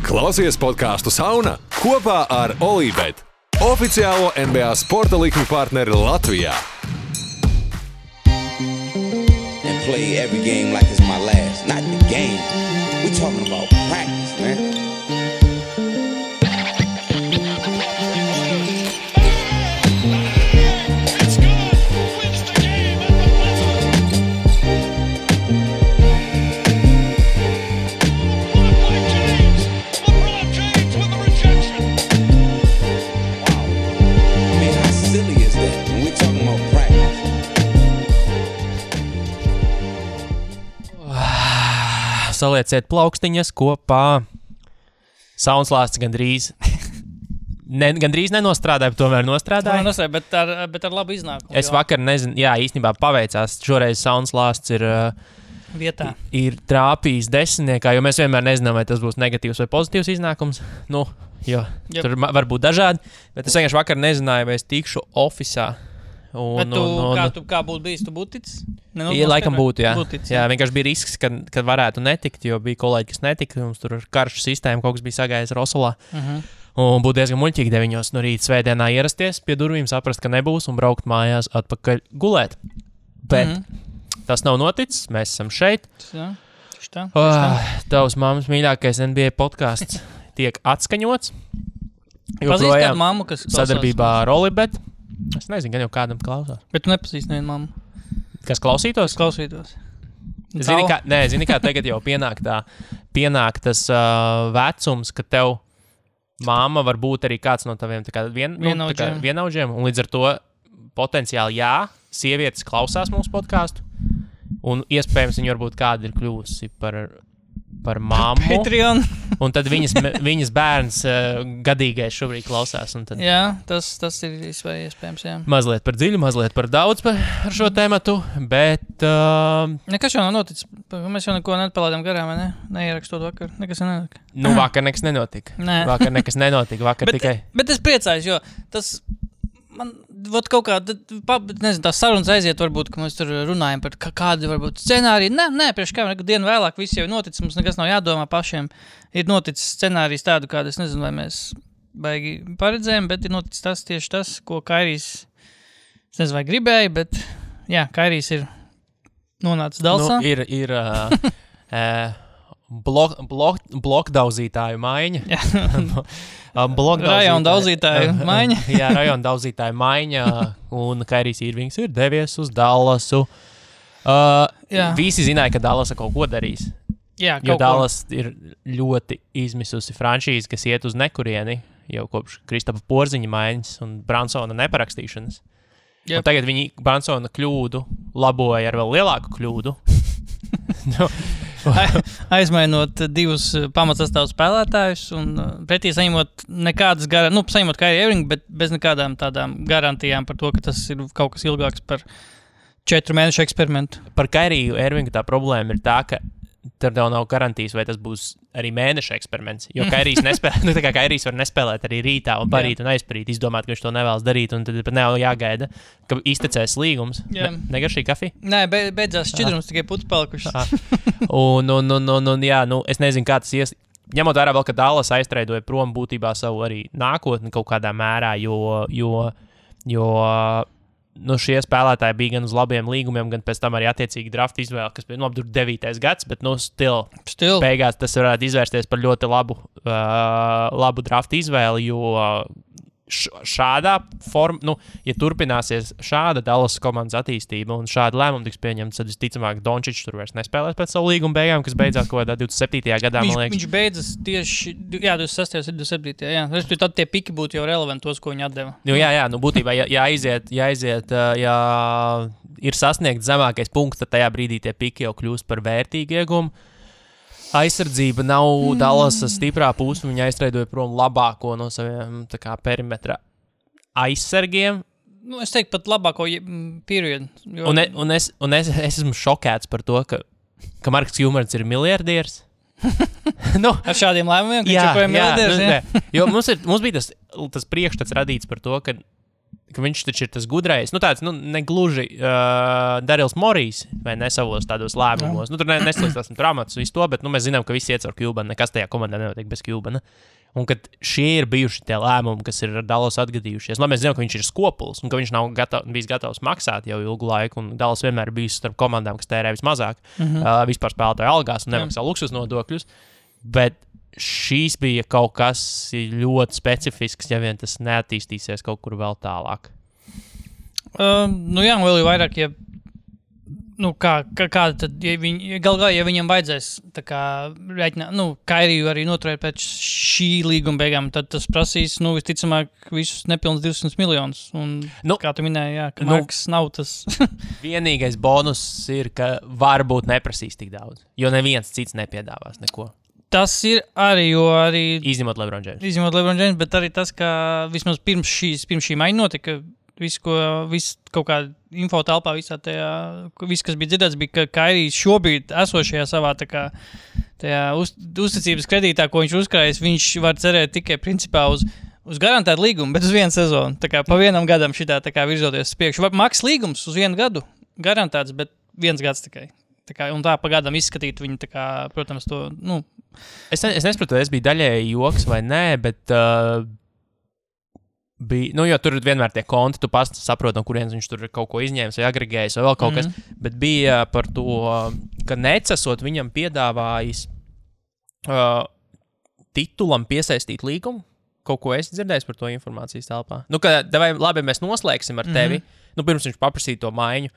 Klausies podcastu Sauna kopā ar Olībet, oficiālo NBA sporta likmi partneri Latvijā. And play every game like it's my last. Not the game. We're talking about practice, man. Salieciet plaukstiņas kopā. Saunslāsts gandrīz nenostrādāja, bet tomēr nostrādāja. Bet ar labu iznākumu. Es vakar nezinu, jā, īstenībā paveicās. Šoreiz Saunslāsts ir vietā. Ir trāpījis desmitniekā, jo mēs vienmēr nezinām, vai tas būs negatīvs vai pozitīvs iznākums. Nu, jo tur var būt dažādi, bet es vienkārši vakar nezināju, vai es tikšu ofisā. Kā būtu bijis, tu būtu ticis? Ja, laikam būtu, jā. Jā, vienkārši bija risks, kad varētu netikt, jo bija kolēģi, kas netika. Mums tur karšu sistēma, kaut kas bija sagājis Rosolā. Un būtu diezgan muļķīgi 9 no rīta svētdienā ierasties pie durvīm, saprast, ka nebūs un braukt mājās atpakaļ gulēt. Bet tas nav noticis, mēs esam šeit. Tavs mammas mīļākais NBA podcasts tiek atskaņots. Pazīst kādu mammu, kas klausās? Sadarbībā ar Olibet. Es nezinu, gan jau kādam klausās. Bet tu nepazīsti nevienu mammu. Kas klausītos? Zini kā tagad jau pienāk tas vecums, ka tev mamma var būt arī kāds no taviem vienaudžiem. Un līdz ar to potenciāli sievietes klausās mūsu podcastu. Un iespējams viņa varbūt kāda ir kļūsi par mammu. Patreon. Un tad viņas bērns gadīgais šobrīd klausās. Tad... Jā, tas ir iespējams, jā. Mazliet par dziļu, mazliet par daudz par šo tēmatu, bet... Nekas jau nav noticis. Mēs jau neko nepalādām garām, vai ne? Neierakstot vakar. Nekas nenotika. Vakar nekas nenotika. Vakar tikai... Bet es priecājos, jo tas... Man kaut kā, nezinu, tās sarunas aiziet, varbūt, ka mēs tur runājam par kādu, varbūt, scenāriju. Nē, priekš kā, dienu vēlāk viss jau ir noticis, mums nekas nav jādomā pašiem. Ir noticis scenārijs tādu, kādu, es nezinu, vai mēs baigi paredzējām, bet ir noticis tieši tas, ko Kairijs, es nezinu, vai gribēja, bet, jā, Kairijs ir nonācis Dalsā. Blokdauzītāju maiņa. Rajona daudzītāju maiņa. Jā, rajona daudzītāju maiņa. Un Kairijs Irvings ir devies uz Dallasu. Visi zināja, ka Dallasa kaut ko darīs. Jā, jo Dallas ir ļoti izmisusi franšīze, kas iet uz nekurieni jau kopš Kristapa Porziņa maiņas un Bransona neparakstīšanas. Yep. Un tagad viņi Bransona kļūdu laboja ar vēl lielāku kļūdu. Aizmainot 2 pamatsastāvu spēlētājus un pretī saņemot nekādas saņemot Kairiju Irvingu, bet bez nekādām tādām garantijām par to, ka tas ir kaut kas ilgāks par 4 mēnešu eksperimentu. Par Kairiju Irvingu tā problēma ir tā, ka tur tev nav garantijas, vai tas būs arī mēneša eksperiments, jo Kairijs nespēlē, tā kā Kairijs var nespēlēt arī rītā un parīt un aizparīt, izdomāt, ka viņš to nevēlas darīt, un tad pat nav jāgaida, ka iztecēs līgums. Negaršīgi kafija? Nē, beidzās šķidrums, tikai putas palikušas. Es nezinu, kā tas ņemot vērā vēl, ka Dallas aiztreidoja prom būtībā savu arī nākotni kaut kādā mērā, jo šie spēlētāji bija gan uz labiem līgumiem, gan pēc tam arī attiecīgi draft izvēle, kas bija 9. gads, bet still. Beigās tas varētu izvērsties par ļoti labu draft izvēli, jo šādā formā, ja turpināsies šāda Dallas komandas attīstība un šāda lēmuma tiks pieņemta, tad visticamāk Dončičs tur vairs nespēlēs pēc savu līguma beigām, kas beidzās kaut kādā 27. gadā, man liekas. Viņš beidzas tieši, 26. un 27. jā. Tad tie piki būtu jau relevanti tos, ko viņi atdeva. Būtībā, ja ir sasniegts zemākais punkts, tad tajā brīdī tie piki jau kļūst par vērtīgu iegumu. Aizsardzība nav Dallasa stiprā puse, viņa aiztreidoja prom labāko no saviem perimetra aizsargiem. Es teiktu pat labāko periodu. Jo... Un es esmu šokēts par to, ka Marks Hjumers ir miljardieris. Ar šādiem lēmumiem, ka viņš joprojām miljardieris. Jo mums bija tas priekšstats radīts par to, ka ka viņš taču ir tas gudrais, tāds, negluži Darils Morijs, vai ne savos tādos lēmumos. Tur neslīstāsim traumātus visu to, bet mēs zinām, ka visi iet caur Cubanu, nekas tajā komandā nenotiek bez Cubana. Un kad šie ir bijuši tie lēmumi, kas ir ar Dallas atgadījušies, mēs zinām, ka viņš ir skopuls un ka viņš nav bijis gatavs maksāt jau ilgu laiku, un Dallas vienmēr ir bijis starp komandām, kas tērē vismazāk vispār spēlētāju algās un nemaksā luksus nodokļus, bet šīs bija kaut kas ļoti specifisks, ja vien tas neattīstīsies kaut kur vēl tālāk. Jā, vēl ir vairāk, ja kāda tad, ja viņam vajadzēs tā kā rēķināt, Kairiju arī noturēt pēc šī līguma beigām, tad tas prasīs, visticamāk, visus nepilns 200 miljonus. Un, kā tu minēji, ka Marks nav tas. Vienīgais bonus ir, ka varbūt neprasīs tik daudz, jo neviens cits nepiedāvās neko. Tas ir arī, Izņemot LeBron James, bet arī tas, ka vismaz pirms šī maiņa notika, viss kaut kāda info telpā, viss, kas bija dzirdēts, bija, ka Kairijs šobrīd esošajā savā tajā uzticības kredītā, ko viņš uzkrājas, viņš var cerēt tikai principā uz garantētu līgumu, bet uz vienu sezonu. Tā kā pa vienam gadam šitā virzoties uz priekšu. Maks līgums uz 1 gadu garantēts, bet 1 gads tikai. Un tā pa gadam izskatīt viņu, protams, to, Es nesaprotu, es biju daļēji joks vai nē, bet bija, jo tur ir vienmēr tie konti, tu pats saproti, no kurienes viņš tur ir kaut ko izņēmis vai agregējis vai vēl kaut kas, bet bija par to, ka necesot viņam piedāvājis titulam piesaistīt līgumu. Kaut ko esi dzirdējis par to informācijas telpā? Labi, mēs noslēgsim ar tevi, pirms viņš paprasīja to maiņu,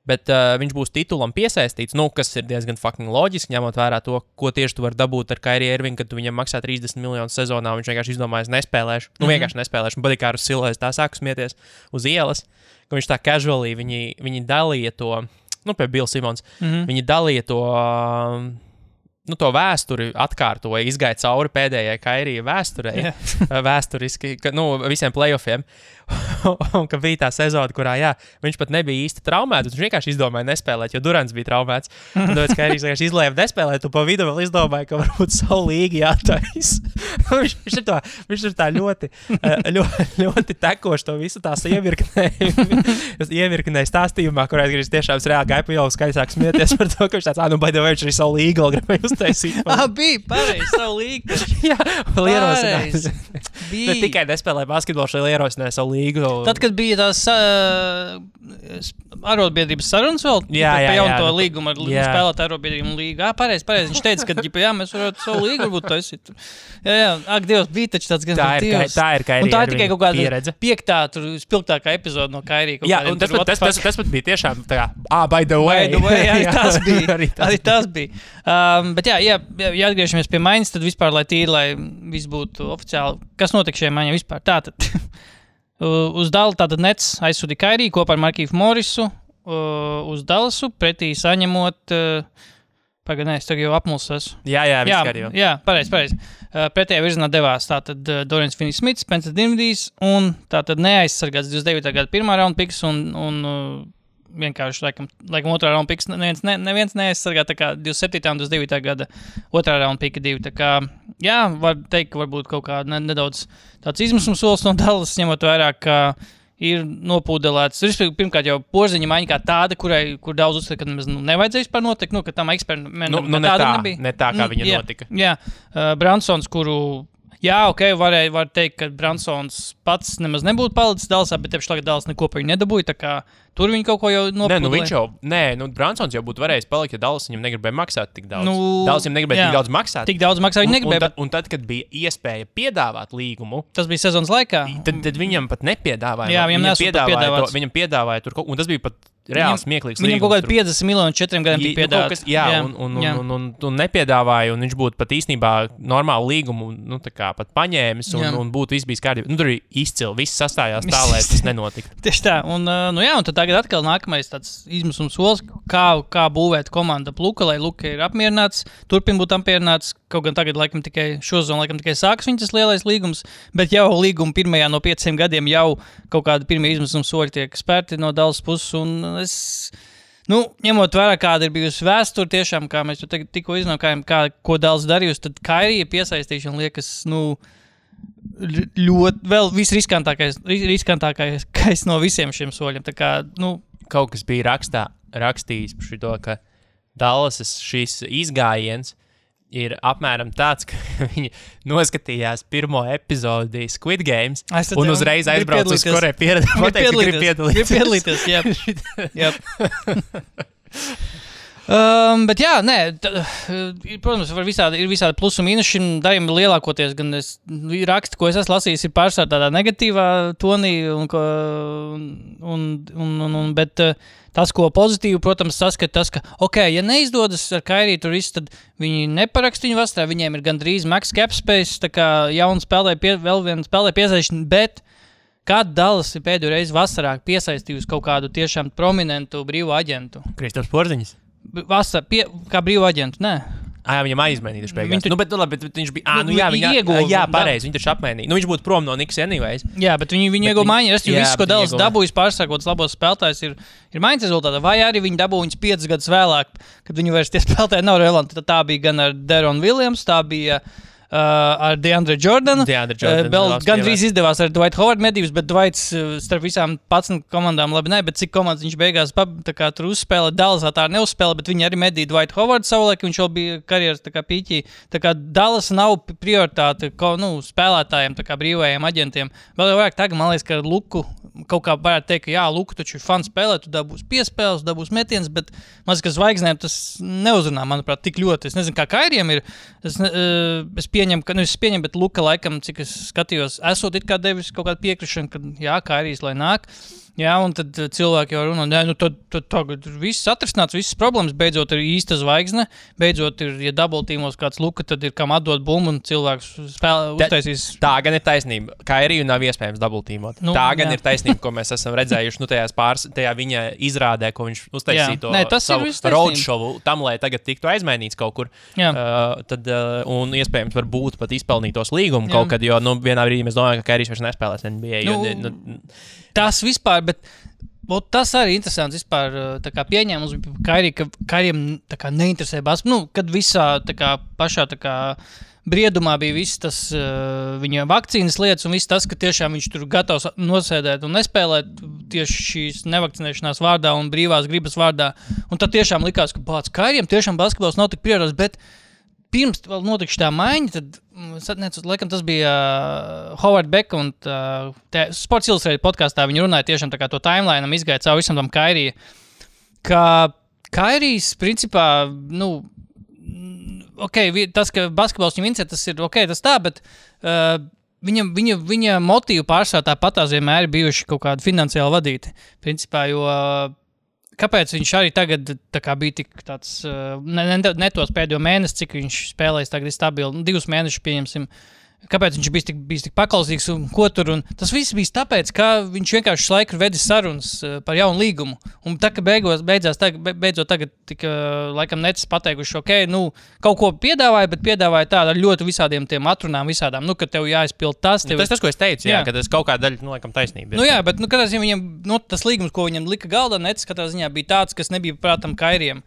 bet viņš būs titulam piesaistīts, kas ir diezgan fucking loģiski, ņemot vērā to, ko tieši tu vari dabūt ar Kairiju Irvingu, kad tu viņam maksā 30 miljonus sezonā, un viņš vienkārši izdomājas nespēlēšu. Vienkārši nespēlēšu, un badīja kā ar Silēs tā sāku smieties uz ielas, ka viņš tā casually, viņi dalīja to, pie Bill Simons, viņi dalīja to, to vēsturi atkārtoja, izgāja cauri pēdējai Kairija vēsturei, vēsturiski, visiem playoffiem. Un ka bija tā sezona, kurā, viņš pat nebija īsti traumēts, viņš vienkārši izdomāja nespēlēt, jo Durants bija traumēts. Un tāpēc Kairijs vienkārši izlēma nespēlēt, un pa vidu vēl izdomāja, ka varbūt savu līgu jātais. viņš ir tā ļoti tekoši to visu tās ievirknēja stāstījumā, kurā es tiešām reāli gāju pa jau skaļāk smieties par to, ka viņš tāds, by the way, viņš arī savu līgu gribēja uztaisīt. Bija pareizi, savu līgu. Jā, vēl ierosinājis. Ne tikai nespēlēja basketbolu, šeit ierosināja savu līgu. Tad, kad bija tās arotbiedrības sarunas vēl, pa jaunu to līgumu ar spēlēt arotbiedrību līgu. Pareizi, viņš teica, ka mēs varētu savu līgu varbūt taisīt. Ak, Dievs, bija taču tāds gan Dievs. Tā ir Kairija. Un tā ir tikai kaut kāda 5. spilgtākā epizoda no Kairija. Jā, un tas pat bija tiešām tā kā, by the way. Arī tas bija. Bet ja atgriežamies pie maiņas, tad vispār, lai tīri, lai viss būtu oficiāli, kas notika šajā maiņā vispār? Tātad. Uz Dallas tātad Nets aizsūtīja Kairiju kopā ar Markīfu Morisu uz Dallasu, pretī saņemot, es tagad jau apmulsos. Jā, jau. Jā, pareizi. Pretējā virzienā devās tātad Dorians Finney-Smits, Spencer Dinwiddijs un tātad neaizsargāts 29. gada 1. raunda piks un vienkārši laikam 2. raunda piks neviens neaizsargā, tā kā 27. un 29. gada 2. raunda pika 2. Tā kā, var teikt, ka varbūt kaut kā nedaudz tāds izmisums solis no Dallas, ņemot vērā, ka ir nopūdelēts. Pirmkārt jau porziņa maiņa kā tāda, kur daudz uzskata, ka nevajadzēja vispār notikt, ka tam eksperimentam tāda nebija. Ne tā, kā viņa notika. Jā, Bransons, kuru... var teikt, ka Bransons pats nemaz nebūtu palicis Dallasā, bet tieši tagad Dallas neko par viņu nedabūja, tā kā tur viņi kaut ko jau nopūdēja. Bransons jau būtu varējis palikt, ja Dallas viņam negribēja maksāt tik daudz. Dallas viņam negribēja tik daudz maksāt. Tik daudz maksāt viņi negribēja. Un tad, kad bija iespēja piedāvāt līgumu, tas bija sezonas laikā. Tad viņam pat nepiedāvāja. Jā, viņam piedāvāja tur kaut ko, un tas bija pat reāli smieklīgs līgums. Viņam kaut kādi 50 miljoni 4 gadiem tika piedāvāts. Un nepiedāvāja, un viņš būtu pat īstenībā normālu līgumu, tā kā pat paņēmis, un būtu viss bijis kārtībā. Tur ir izcili, viss sastājās tā, lai tas nenotika. Tieši tā, un tad tagad atkal nākamais tāds izmisums solis, kā būvēt komandu Luka, lai Luka ir apmierināts, turpin būt apmierināts, kaut gan tagad laikam tikai sākas viņa tas lielais līgums, bet jau līguma pirmajā no 5 gadiem jau kaut kādi pirmie izmisums soļi tiek spērti no Dallas puses, un es, ņemot vērā, kāda ir bijusi vēsture tiešām, kā mēs tikko izdomājām, ko Dallas darījusi, tad Kairija piesaistīšana liekas, ļoti, vēl visriskantākais no visiem šiem soļiem. Tā kā, Kaut kas bija rakstījis par šito, ka Dallasas šis izgājiens ir apmēram tāds, ka viņi noskatījās pirmo epizodi Squid Games un uzreiz aizbrauca uz Koreju piedalīties. Jā. Bet jā, protams, ir visādi plusi un mīnusi šim darījumam lielākoties, gan raksti, ko es esmu lasījis, ir pārstāv tādā negatīvā tonī, bet tas, ko pozitīvi, protams, saskata tas, ka, ja neizdodas ar Kairiju tur viss, tad viņi neparakst viņu vasarā, viņiem ir gandrīz max cap space, tā kā jauna vēl viena spēlē piesaistīšana, bet kad Dallas ir pēdējo reizi vasarā piesaistījusi kaut kādu tiešām prominentu brīvu aģentu? Kristaps Porziņš? Vasarā, kā brīvu aģentu, nē. Viņam aizmainījuši beigās. Bet viņš bija... viņi ieguva. Jā, pareizi, viņi taču apmainīja. Viņš būtu prom no Knicks anyways. Jā, bet viņi ieguva maiņu. Es visu, ko Dallas dabūjis pārsākot labos spēlētājs, ir maiņas rezultātā. Vai arī viņi dabū viņus 5 gadus vēlāk, kad viņi vairs tie spēlētāji nav relevanti. Tā bija gan ar Deron Williams, tā bija... ar DeAndre Jordanu. Gandrīz izdevās ar Dwight Howard medības, bet Dwights starp visām 11 komandām labi bet cik komandas viņš beigās tur uzspēlē, Dallasā tā neuzspēlē, bet viņi arī medīja Dwight Howard savulaik, viņš jau bija karjeras pīķī. Tā kā Dallas nav prioritāte spēlētājiem, tā kā brīvajiem aģentiem. Vēl jau vairāk tagad, man liekas, ka Luku kaut kā varētu teikt, ka jā, Luku taču ir fans spēlē, tu dabūs piespēles, dabūs metiens, bet maz, ka zvaigznēm tas neuzrunā, manuprāt, tik ļoti. Es nezinu, kā Kairiem ir. Es pieņemu, bet Luka laikam, cik es skatījos, esot it kā devis kaut kādu piekrišanu, ka jā, Kairijs, lai nāk. Jā, un tad cilvēki jau runā, tad tagad viss atrisināts, visas problēmas, beidzot ir īsta zvaigzne, beidzot ir, ja double-teamos kāds Luka, tad ir kam atdot bumbu un cilvēks uztaisīs. Tā gan ir taisnība. Kairiju nav iespējams double-teamot. Tā gan ir taisnība, ko mēs esam redzējuši, tajā viņa izrādē, ko viņš uztaisīja to savu roadshowu, tam, lai tagad tiktu aizmainīts kaut kur. Un iespējams varbūt pat izpelnītos līgumu kaut kad, jo vienā brīdī mēs domājam, ka Kairijs vairs nespēlēs NBA. Tas vispār, bet tas arī interesants vispār, tā kā pieņēmums bija ka Kairijam tā kā neinteresē basketbolu, kad visā tā kā pašā tā kā briedumā bija viss tas viņa vakcīnas lietas un viss tas, ka tiešām viņš tur gatavs nosēdēt un nespēlēt tieši šīs nevakcinēšanās vārdā un brīvās gribas vārdā. Un tad tiešām likās, ka Kairijam tiešām basketbols nav tik prioritārs, bet pirms vēl notika šī maiņa, tad, laikam, tas bija Howard Beck un Sports Illustrated podkastā viņi runāja tiešām tā kā to timeline'am izgāja caur visam tam Kairiju, ka Kairijs, principā, tas, ka basketbols viņam interesē, tas ir tas tā, bet viņa motīvu pārsvarā tāpatās vienmēr ir bijuši kaut kādi finansiāli vadīti, principā, jo kāpēc viņš arī tagad bija tik tāds, ne tos pēdējo mēnesi, cik viņš spēlēs tagad ir stabili, 2 mēnešus pieņemsim, kāpēc viņš bijis tik paklausīgs un ko tur, un tas viss bija tāpēc, ka viņš vienkārši laiku vedis sarunas par jaunu līgumu, un tā, ka beidzot tagad tika, laikam, necis pateikuši, kaut ko piedāvāja, bet piedāvāja tādu ar ļoti visādiem tiem atrunām visādām, ka tev jāizpild tas. Tas, ko es teicu, jā, ka tas kaut kāda daļa, laikam, taisnība. Bet, katrā ziņā viņam, tas līgums, ko viņam lika galdā, necis katrā ziņā bija tāds, kas nebija prātam Kairiem.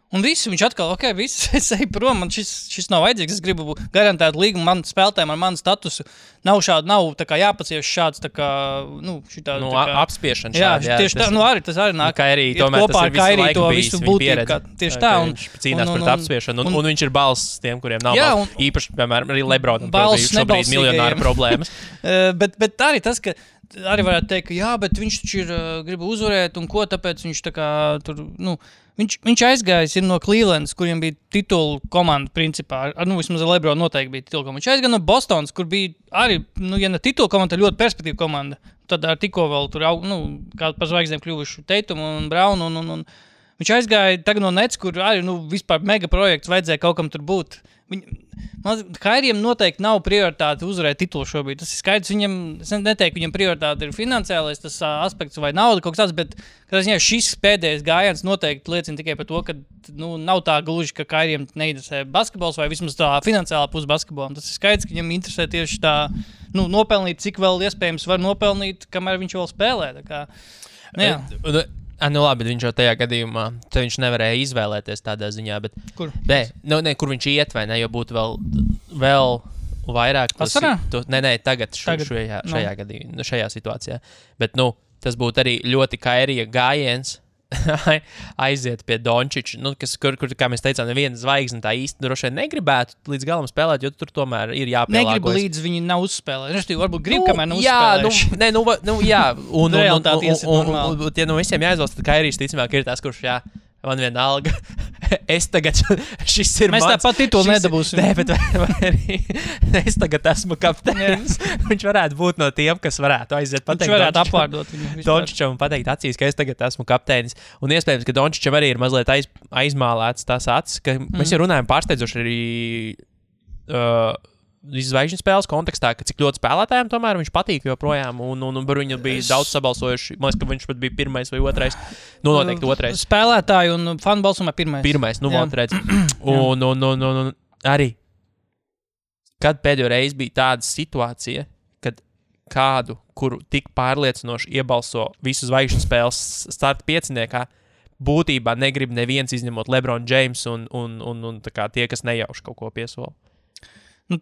Un viss, viņš atkal, es eju prom, man šis nav vajadzīgs, es gribu garantēt līgumu man spēlētājiem ar manu statusu. Nav tā kā jāpacieš šāds, tā kā, šitā... apspiešana šādi. Jā, tieši tā, tas arī nāk. Kairī, tomēr tas ir visu laiku bijis viņa pieredze. Tieši tā. Viņš cīnās pret apspiešanu, un viņš ir balss tiem, kuriem nav balss. Īpaši, piemēram, arī Lebronam šobrīd miljonāru problēmas. Bet arī tas, ka arī varētu teikt, ka jā, bet viņš taču grib uzvarēt, un ko tāpēc viņš tā kā tur, Viņš aizgājis no Clevelandas, kuriem bija titulu komanda principā. Vismaz Lebrona noteikti bija titulu komanda. Viņš aizgāja no Bostonas, kur bija arī, ja ne titulu komanda, tad ļoti perspektīva komanda. Tad ar tikko vēl tur, kā par zvaigznēm kļuvuši Tatum un Brown. Un viņš aizgāja tagad no Nets, kur arī vispār mega projekts vajadzēja kaut kam tur būt. Kairiem noteikti nav prioritāte uzvarēt titulu šobrīd. Tas ir skaidrs, es neteiktu, viņam prioritāte ir finansiālais tas aspekts vai nauda kaut kas tāds, bet šis pēdējais gājiens noteikti liecina tikai par to, ka nav tā gluži, ka Kairiem neinteresē basketbols vai vismaz tā finansiālā puse basketbolam. Tas ir skaidrs, ka viņam interesē tieši tā, nopelnīt, cik vēl iespējams var nopelnīt, kamēr viņš vēl spēlē. Tā kā, labi, viņš jau tajā gadījumā, tad viņš nevarēja izvēlēties tādā ziņā, bet... Kur? Kur viņš iet vai ne, jo būtu vēl vairāk Vasarā? Tagad šajā gadījumā, šajā situācijā. Bet, tas būtu arī ļoti Kairija gājiens aiziet pie Dončiča, kur, kā mēs teicām, neviena zvaigzne tā īsti droši vien negribētu līdz galam spēlēt, jo tur tomēr ir jāpielāgojas. Negribu līdz viņi nav uzspēlējuši. Respektīvi, varbūt grib, kamēr nav uzspēlējuši. Jā, un tie no visiem jāizvēlas, tad Kairijs ticamāk ir tas, kurš man vienalga. Šis ir mēs mans. Mēs tāpat titulu nedabūsim. Nē, bet arī es tagad esmu kapteinis. Viņš varētu būt no tiem, kas varētu aiziet pateikt. Viņš varētu apvārdot viņu. Dončičam pateikt acīs, ka es tagad esmu kapteinis. Un iespējams, ka Dončičam arī ir mazliet aizmālēts tās acis, ka mēs jau runājam pārsteidzoši arī zvaigžņu spēles kontekstā, ka cik ļoti spēlētājiem tomēr viņš patīk joprojām, un viņu bija daudz sabalsojuši. Man liekas, ka viņš pat bija pirmais vai otrais. Noteikti otrais. Spēlētāji un fanu balsumā pirmais. Pirmais, otrais. Un arī, kad pēdējo reizi bija tāda situācija, kad kādu, kuru tik pārliecinoši iebalso visu zvaigžņu spēles starta pieciniekā, būtībā negrib neviens izņemot LeBron James un tā kā tie, kas nejauši kaut ko piesola.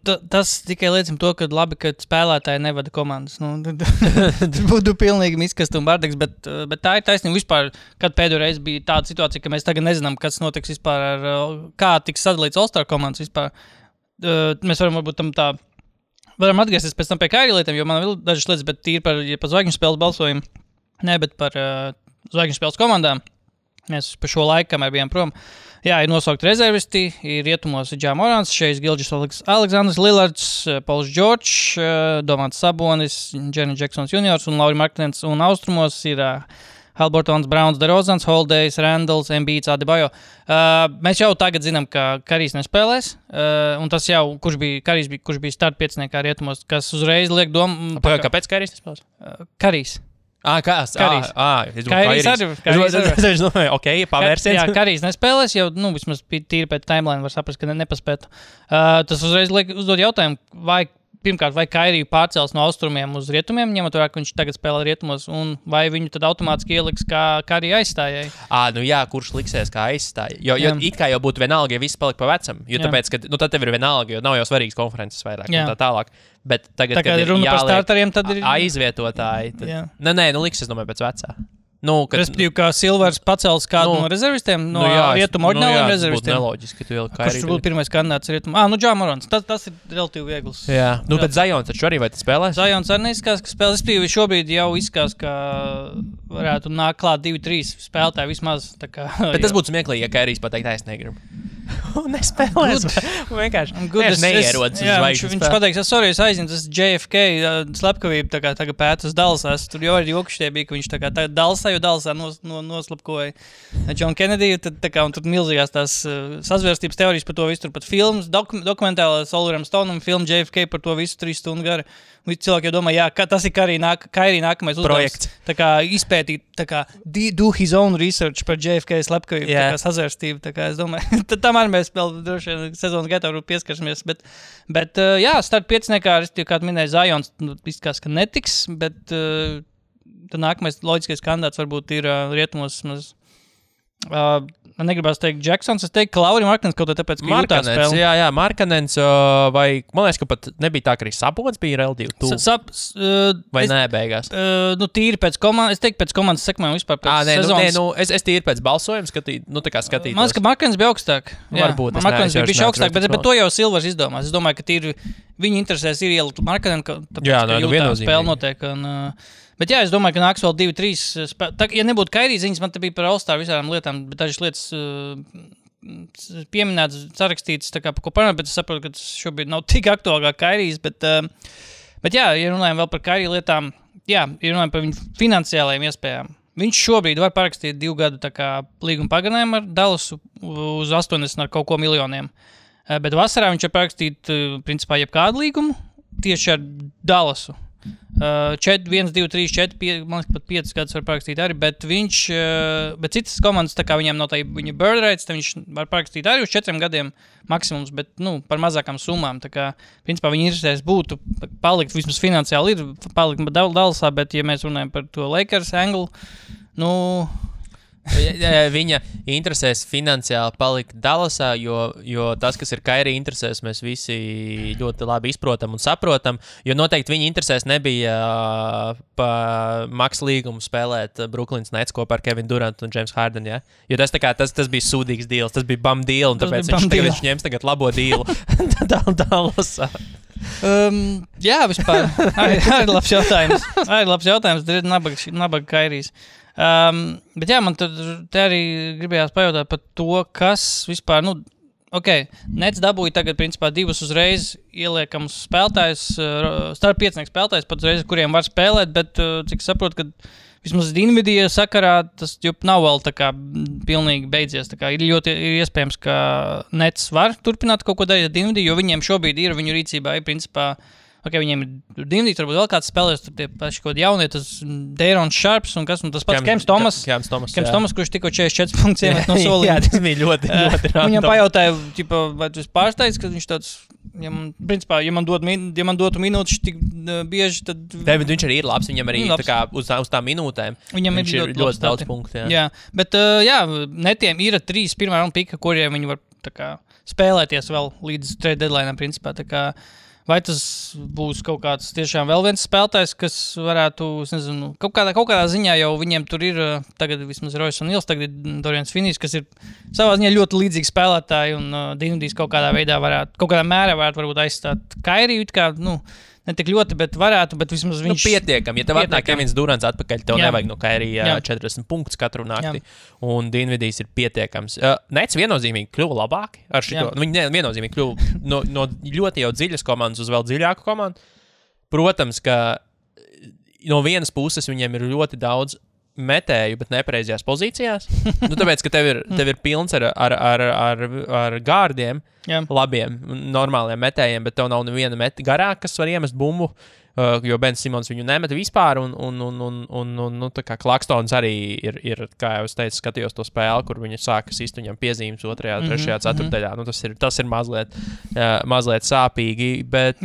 Tas tikai liecina to, ka labi, ka spēlētāji nevada komandas. Tas būtu pilnīgi miskast un bardeks, bet tā ir taisnība vispār, kad pēdējo reizi bija tāda situācija, ka mēs tagad nezinām, kas notiks vispār kā tiks sadalīts All-Star komandas vispār. Mēs varam varbūt varam atgriezties pēc tam pie Kairija lietām, jo man vēl dažas lietas, bet tīri par zvaigžņu spēles balsojumu, ne, bet par zvaigžņu spēles komandām. Mēs pa šo laiku, kamēr bijām prom. Jā, ir nosaukt rezervisti, ir rietumos Ja Morants, Šejs Gilģis Aleksandrs Lillards, Pauls Džordžs, Domants Sabonis, Jaren Jacksons Juniors un Lauri Marknens, un austrumos ir Haliburtons, Browns, DeRozans, Holidejs, Randalls, Embiids, Adebayo. Mēs jau tagad zinām, ka Karijs nespēlēs, un tas jau, kurš bija start pieciniekā rietumos, kas uzreiz liek domu... Kāpēc Karijs nespēlēs? Karijs. Karijs arī. Ok, pavērsiens. Jā, Karijs nespēlēs, jau vismaz tīri pēc timeline var saprast, ka nepaspētu. Tas uzreiz uzdod jautājumu, vai Kairiju pārcels no austrumiem uz rietumiem, ņemot vērā, ka viņš tagad spēlē rietumos, un vai viņu tad automātiski ieliks kā Kariju aizstājai? Kurš liksies kā aizstāja? Jo it kā jau būtu vienalga, ja viss palika pa vecam. Jo tāpēc, ka tad tev ir vienalga, jo nav jau svarīgas konferences vairāk un tā tālāk. Bet tagad, kad ir runa par starteriem, tad ir aizvietotāji. Liksies, domāju, pēc vecā. Respektīvi, kā Silvers pacels kādu no rezervistiem, no rietumu oriģināliem rezervistiem. Tas būtu neloģiski, ka tu ieliek Kairiju. Kurš būtu pirmais kandidāts rietumu? Ja Morants. Tas ir relatīvi viegls. Jā. Bet Zajons taču arī vai tas spēlēs? Zajons arī neizskās, ka spēlēs. Respektīvi, šobrīd jau izskās, ka varētu nākt klāt 2-3 spēlētāji vismaz. Bet tas būtu smieklīgi, ja Kairijs pateikt, es negribu. Nespēlēs. Vienkārši neierodas uz zvaigžņu. Viņš pateiks, sorry, es aizņemu tas JFK slepkavību, tagad pēt uz Dallasā. Tur jau arī jokušie bija, ka viņš tagad Dallasā, jo Dallasā noslapkoja John Kennedy, un tur milzīgās tās sazvērstības teorijas par to visu, tur pat filmas, dokumentālā Oliveram Stoneam filmu JFK par to visu 3 stundu gara. Cilvēki jau domā, ka tas ir Kairija nākamais uzdevums. Izpētīt, do his own research par JFK slepkavību, sazvērstību. Es domāju, tam arī mēs vēl droši vien sezonas gaitā pieskarsimies. Bet start pieciniekā, kā minēja Zajons, izskās, ka netiks, bet tad nākamais loģiskais kandidāts varbūt ir rietumos maz. Man negribas teikt Jacksons, es teiktu, ka Lauri Marknens kaut tāpēc, ka jūtā spēle. Jā, Marknens, vai, man liekas, ka pat nebija tā, ka arī Sabonis bija relatīvi tuvu. Vai nē, beigās? Tīri pēc komandas, es teiktu pēc komandas sekmēm vispār pēc sezonas. Es tīri pēc balsojuma skatītos. Man liekas, ka Marknens bija augstāk. Varbūt. Marknens bija augstāk, bet to jau Silvers izdomās. Es domāju, ka tīri viņa interesēs ir ielikt Marknenu, tāpēc, ka jūtā spēle notiek. Bet jā, es domāju, ka nāks vēl 2-3 spēlētāji. Ja nebūtu Kairija ziņas, man te bija par All-Star visām lietām, bet dažas lietas pieminētas, sarakstītas, par ko parunāt, bet es saprotu, ka tas šobrīd nav tik aktuāli kā Kairijs. Bet jā, ja runājam vēl par Kairija lietām, ja runājam par viņu finansiālajiem iespējām. Viņš šobrīd var parakstīt 2 gadu līguma pagarinājumu ar Dallasu uz 80 ar kaut ko miljoniem. Bet vasarā viņš var parakstīt, principā, jebkādu līgumu tieši ar Dallasu. 1, 2, 3, 4, 5, man liekas, pat 5 gadus var parakstīt arī, bet citas komandas, tā kā viņiem nav tā viņa bird rights, viņš var parakstīt arī uz 4 gadiem maksimums, bet, par mazākām summām, tā kā, principā, viņa interesēs būtu palikt, vismaz finansiāli ir palikt Dallasā, bet, ja mēs runājam par to Lakers anglu, Viņa interesēs finansiāli palikt Dallasā, jo tas, kas ir Kairī interesēs, mēs visi ļoti labi izprotam un saprotam, jo noteikti viņa interesēs nebija pa maks līgumu spēlēt Brooklyns Nets kopā ar Kevinu Durantu un James Harden, ja? Jo tas bija sūdīgs deals, tas bija bum deal, un tāpēc viņš ņems tagad labo dealu Dallasā. Jā, vispār. Arī labs jautājums. Nabaga Kairīs. Bet jā, man te arī gribējās pajautāt par to, kas vispār, Nets dabūja tagad, principā, 2 uzreiz ieliekams spēlētājs, starp 5 spēlētājs, pat uzreiz, kuriem var spēlēt, bet, cik saprotu, ka vismaz Dinvidija sakarā tas nav vēl tā kā pilnīgi beidzies. Tā kā ir iespējams, ka Nets var turpināt kaut ko darīt ar Dinvidiju, jo viņiem šobrīd ir viņu rīcībā, principā, viņiem ir Dinvidijs, varbūt vēl kāds spēlēs, tur tie paši kaut jaunie, tas Deirons Sharps un kas, un tas pats Kems Thomas, kurš tikko 44 punktus iemet no solījuma. Jā, tas bija ļoti random. Viņam pajautāja, vai tu esi pārsteigts, ka viņš tāds, principā, ja man dotu minūtes tik bieži, tad... Viņš arī ir labs, viņam arī tā kā uz tām minūtēm. Viņam viņš ir ļoti daudz punktu. Jā, bet Netiem ir 3 pirmā raunda pika, kuriem viņi var tā kā spēlēties vēl līdz trade deadline'am, principā, tā kā... Vai tas būs kaut kāds tiešām vēl viens spēlētājs, kas varētu, es nezinu, kaut kādā ziņā jau viņiem tur ir, tagad vismaz Royce un Nils, tagad ir Dorians Finnijs, kas ir savā ziņā ļoti līdzīgi spēlētāji, un Dinvidijs kaut kādā mērā varētu aizstāt Kairiju, kā, ne tik ļoti, bet varētu, bet vismaz viņš... Pietiekam, ja tev atnāk Kevins Durants atpakaļ, tev nevajag no Kairija 40 punktus katru nakti, un Dinvidijs ir pietiekams. Nets viennozīmīgi kļuva labāki ar šito. Viņi viennozīmīgi kļuva no ļoti jau dziļas komandas uz vēl dziļāku komandu. Protams, ka no vienas puses viņiem ir ļoti daudz metēju, bet nepareizajās pozīcijās. Tāpēc, ka tev ir pilns ar gārdiem, labiem, normāliem metējiem, bet tev nav neviena meta garā, kas var iemest bumbu, jo Ben Simons viņu nemeta vispār, un tā kā Klakstons arī ir, kā jau es teicu, skatījos to spēli, kur viņi sāka sist viņam piezīmes 2., 3., 4. Tas ir mazliet sāpīgi, bet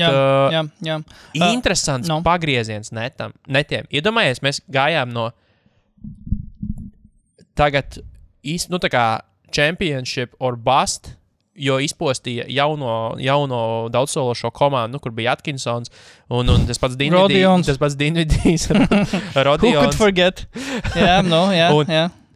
interesants pagrieziens netiem. Iedomājies, mēs gājām no tagad tā kā championship or bust, jo izpostīja jauno daudzsološo komandu, kur bija Atkinsons un tas pats Dinvidijs, Rodions. Who could forget? Jā.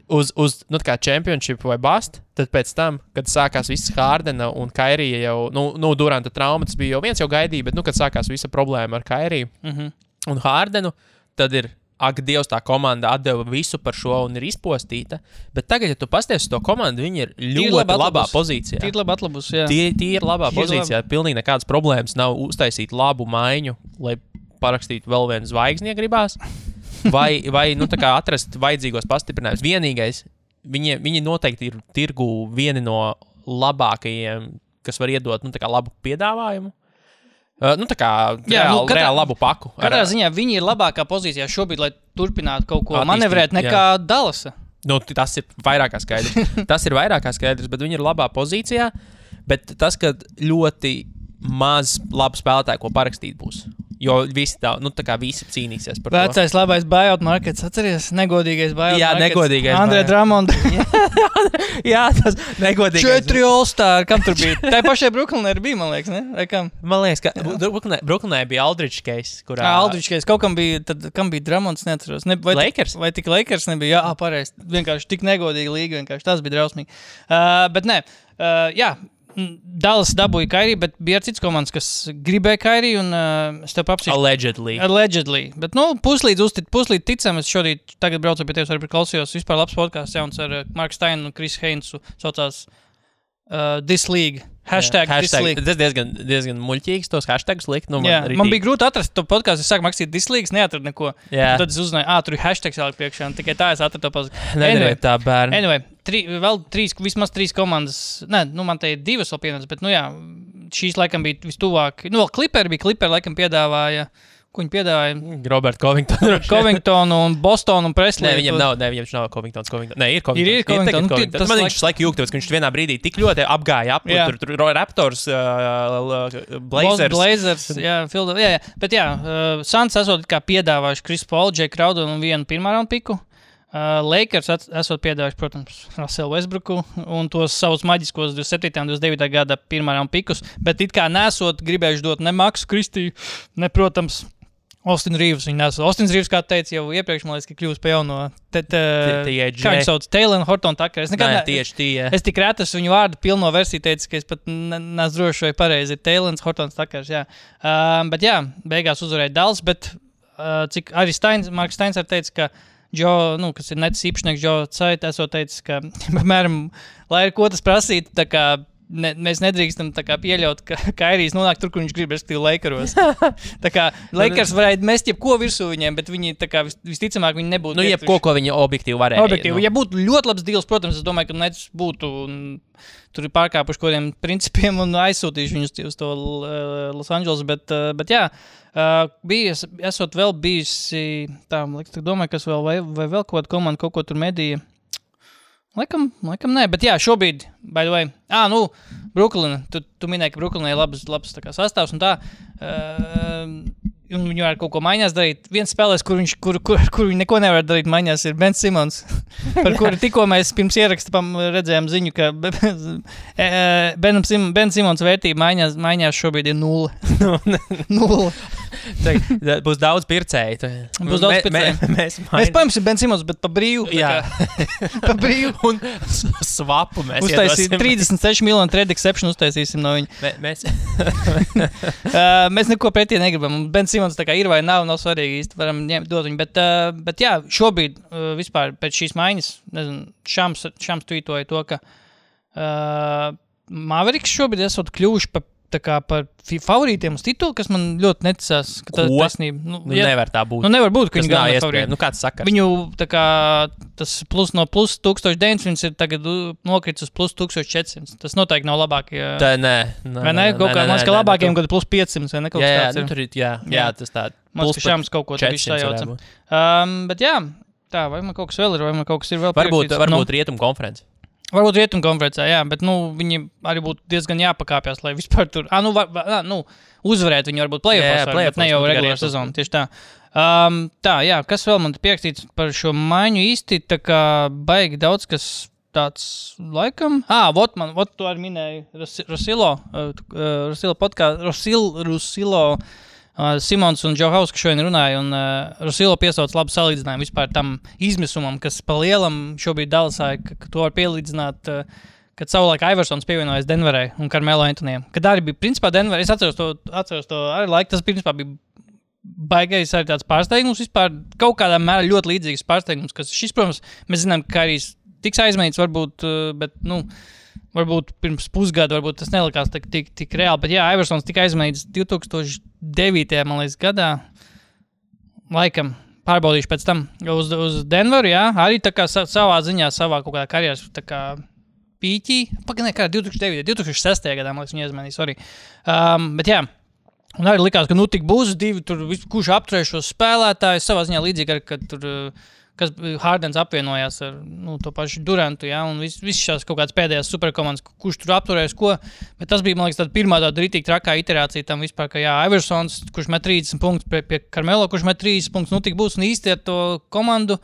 Uz kā championship vai bust, tad pēc tam, kad sākās viss Hardena un Kairija jau, Duranta trauma, tas bija jau viens jau gaidīja, bet, kad sākās visa problēma ar Kairiju un Hardenu, tad ir ak, Dievs, tā komanda atdeva visu par šo un ir izpostīta, bet tagad, ja tu pasties uz to komandu, viņi ir ļoti labā pozīcijā. Tīri labi atlabus, jā. Tīri labā pozīcijā, pilnīgi nekādas problēmas nav uztaisīt labu maiņu, lai parakstītu vēl vienu zvaigzni, ja gribās, vai tā kā atrast vajadzīgos pastiprinājumus. Vienīgais, viņi noteikti ir tirgu vieni no labākajiem, kas var iedot, tā kā labu piedāvājumu. Tā kā reāli labu paku. Katrā ziņā viņi ir labākā pozīcijā šobrīd, lai turpinātu kaut ko manevrēt nekā Dallasa. Tas ir vairāk kā skaidrs. Bet viņi ir labā pozīcijā, bet tas, ka ļoti maz labu spēlētāju, ko parakstīt būs. Jo visi visi cīnīsies par to. Vecais labais buyout markets, atceries? Negodīgais buyout markets. Jā, negodīgais. Andrē Drummond. Jā, tas negodīgais. 4 All-Star, kam tur bija? Tā pašai Brooklynai bija, man liekas, ne? Vai kam? Man liekas, ka Brooklynai bija Aldridge case, kurā... Aldridge case. Kaut kam bija, tad kam bija Drummonds, neatceros. Lakers? Vai tik Lakers nebija? Jā, pareizi. Vienkārši tik negodīga līga, vienkārši tas bija drausmīgi. Bet nē, Dallas dabūja Kairiju, bet bija cits komandas, kas gribēja Kairiju, un es tev papsīšu. Allegedly. Bet, puslīd ticam, es šodien tagad braucu pie tevis, arī klausījos vispār labs podcasts jauns ar Marku Steinu un Chris Heinzu, saucās This League. Hashtag This League. Tas diezgan muļķīgs tos hashtagus likt. Man bija grūti atrast to podcastu, es sāku rakstīt This League, neatradu neko. Tad es uzzināju, tur ir hashtags jāliek priekšā, un tikai tā es atradu to podcastu. Nedariet tā, bērni. Anyway, vismaz 3 komandas, man te ir 2 vēl pienācis, bet, šīs laikam bija vistuvāk. Vēl Clipperi laikam piedāvāja. Ko viņi piedāvāja? Robert Covingtonu un Bostonu un Presley. Viņam nav Covingtons. Nē, ir Covington. Man viņš laiku jūg, tāpēc, ka viņš vienā brīdī tik ļoti apgāja ap, tur Raptors, Blazers, jā. Bet Suns esot kā piedāvājuši Chris Paul, Jake Crowder un vienu pirmā raunda piku. Lakers esot piedāvājuši, protams, Russellu Westbrooku un tos savus maģiskos 27. un 29. gada pirmajām pikus, bet it kā nesot gribējuši dot ne Maksu Kristiju, ne, protams, Austin Reeves. Austin Reeves, kā teica jau iepriekš, man liekas, ka kļūst pa jauno kā viņš sauc, Taylor Horton Tucker. Es tik reti viņu vārdu pilno versiju teicu, ka es pat neesmu droši vai pareizi ir Taylor Horton Tuckers, jā. Bet jā, beigās uzvarēja Dallas, bet cik arī Marks Steins arī teica, ka kas ir netis īpašnieks Joe Tsai, esot teicis, ka, piemēram, lai ir ko tas prasīt, tā kā mēs nedrīkstam tā kā pieļaut, ka Kairijs nonāk tur, kur viņš grib, respektīvi Lakeros. Tā kā Lakers varētu mest jebko virsū viņiem, bet viņi tā kā visticamāk viņi nebūtu. Jebko, ko viņi objektīvi varēja. Ja būtu ļoti labs deals, protams, es domāju, ka Nets būtu tur ir pārkāpuši kodiem principiem un aizsūtījuši viņus uz to Los Angeles, bet jā, esot vēl bijusi, domāju, kas vēl, vai vēl kaut komanda kaut ko tur medīja. Laikam nē, bet jā, šobrīd, by the way, Brooklyn, tu minēji, ka Brooklynai ir labs tā kā sastāvs un tā, un viņi var kaut ko maiņās darīt. Viens spēlēs, kur viņi neko nevar darīt maiņās, ir Ben Simmons, par kuru tikko mēs pirms ieraksta redzējām ziņu, ka Ben Simmons vērtība maiņās šobrīd ir 0. Būs daudz pircēju. Būs daudz pircēju. Mēs paimsim Ben Simmons, bet pa brīvu. Jā. Pa brīvu. Un svapu mēs uztaisīsim. 36 miljonu trade exception uztaisīsim no viņa. Mēs neko pretī negribam. Ben Simmons tā kā ir vai nav svarīgi īsti, varam dot viņu. Bet jā, šobrīd vispār pēc šīs maiņas, nezinu, Šams tweetoja to, ka Mavericks šobrīd esot kļuvuši par favorītiem uz titulu, kas man ļoti neticās, ka tā ir taisnība. Nevar tā būt. Nevar būt, ka viņi galvenā favorīti. Kāds sakars? Viņu tā kā tas no plus 1900 ir tagad nokrits uz plus 1400. Tas noteikti nav labāk. Tā nē. Vai ne? Kaut kā man ska labākiem, kad plus 500 vai ne kaut kas tāds ir. Jā, tas tā. Man ska Šams kaut ko tā visu sajauca. Bet jā, tā, vai man kaut kas vēl ir, vai man kaut kas ir vēl pierakstīts. Varbūt Rietumu konferences. Varbūt Rietumu konferencē, jā, bet, viņi arī būtu diezgan jāpakāpjas, lai vispār tur, uzvarēt viņi varbūt play-offs, bet ne jau regulāra sezona, tieši tā. Tā, jā, kas vēl man te pierakstīts par šo maiņu īsti, tā kā baigi daudz, kas tāds laikam, vot tu arī minēji Rusilo Simons un Joe House, kas šodien runāja, un Rusilo piesauc labu salīdzinājumu vispār tam izmisumam, kas pa lielam šobrīd Dallasā, ka to var pielīdzināt, kad savulaik Iversons pievienojas Denverai un Carmelo Anthonyam. Kad arī bija, principā, Denver, es atceros to arī laiku, tas principā bija baigais arī tāds pārsteigums vispār, kaut kādā mērā ļoti līdzīgs pārsteigums, kas šis, protams, mēs zinām, ka arī tiks aizmainīts varbūt, bet, varbūt pirms pusgada, varbūt tas nelikās tik reāli, bet jā, Iversons tika aizmainīts 2009. Man liekas gadā, laikam, pārbaudīšu pēc tam uz Denveru, jā, arī tā kā savā ziņā, savā kaut kādā karjeras, tā kā pīķī, 2006. gadā, man liekas, viņi aizmainīja, sorry. Bet jā, un arī likās, ka tik būs divi, tur kurš apturēs šos spēlētājus, savā ziņā līdzīgi, kad tur kas Hardens apvienojās ar to pašu Durantu, ja, un viss šās kaut kādas pēdējās superkomandas, kurš tur apturēs ko, bet tas bija, man liekas, tāda pirmā tāda ritīgi trakā iterācija tam vispār, ka jā, Iversons, kurš met 30 punktus pie Carmelo, kurš met 30 punktus, tik būs, un īsti ar to komandu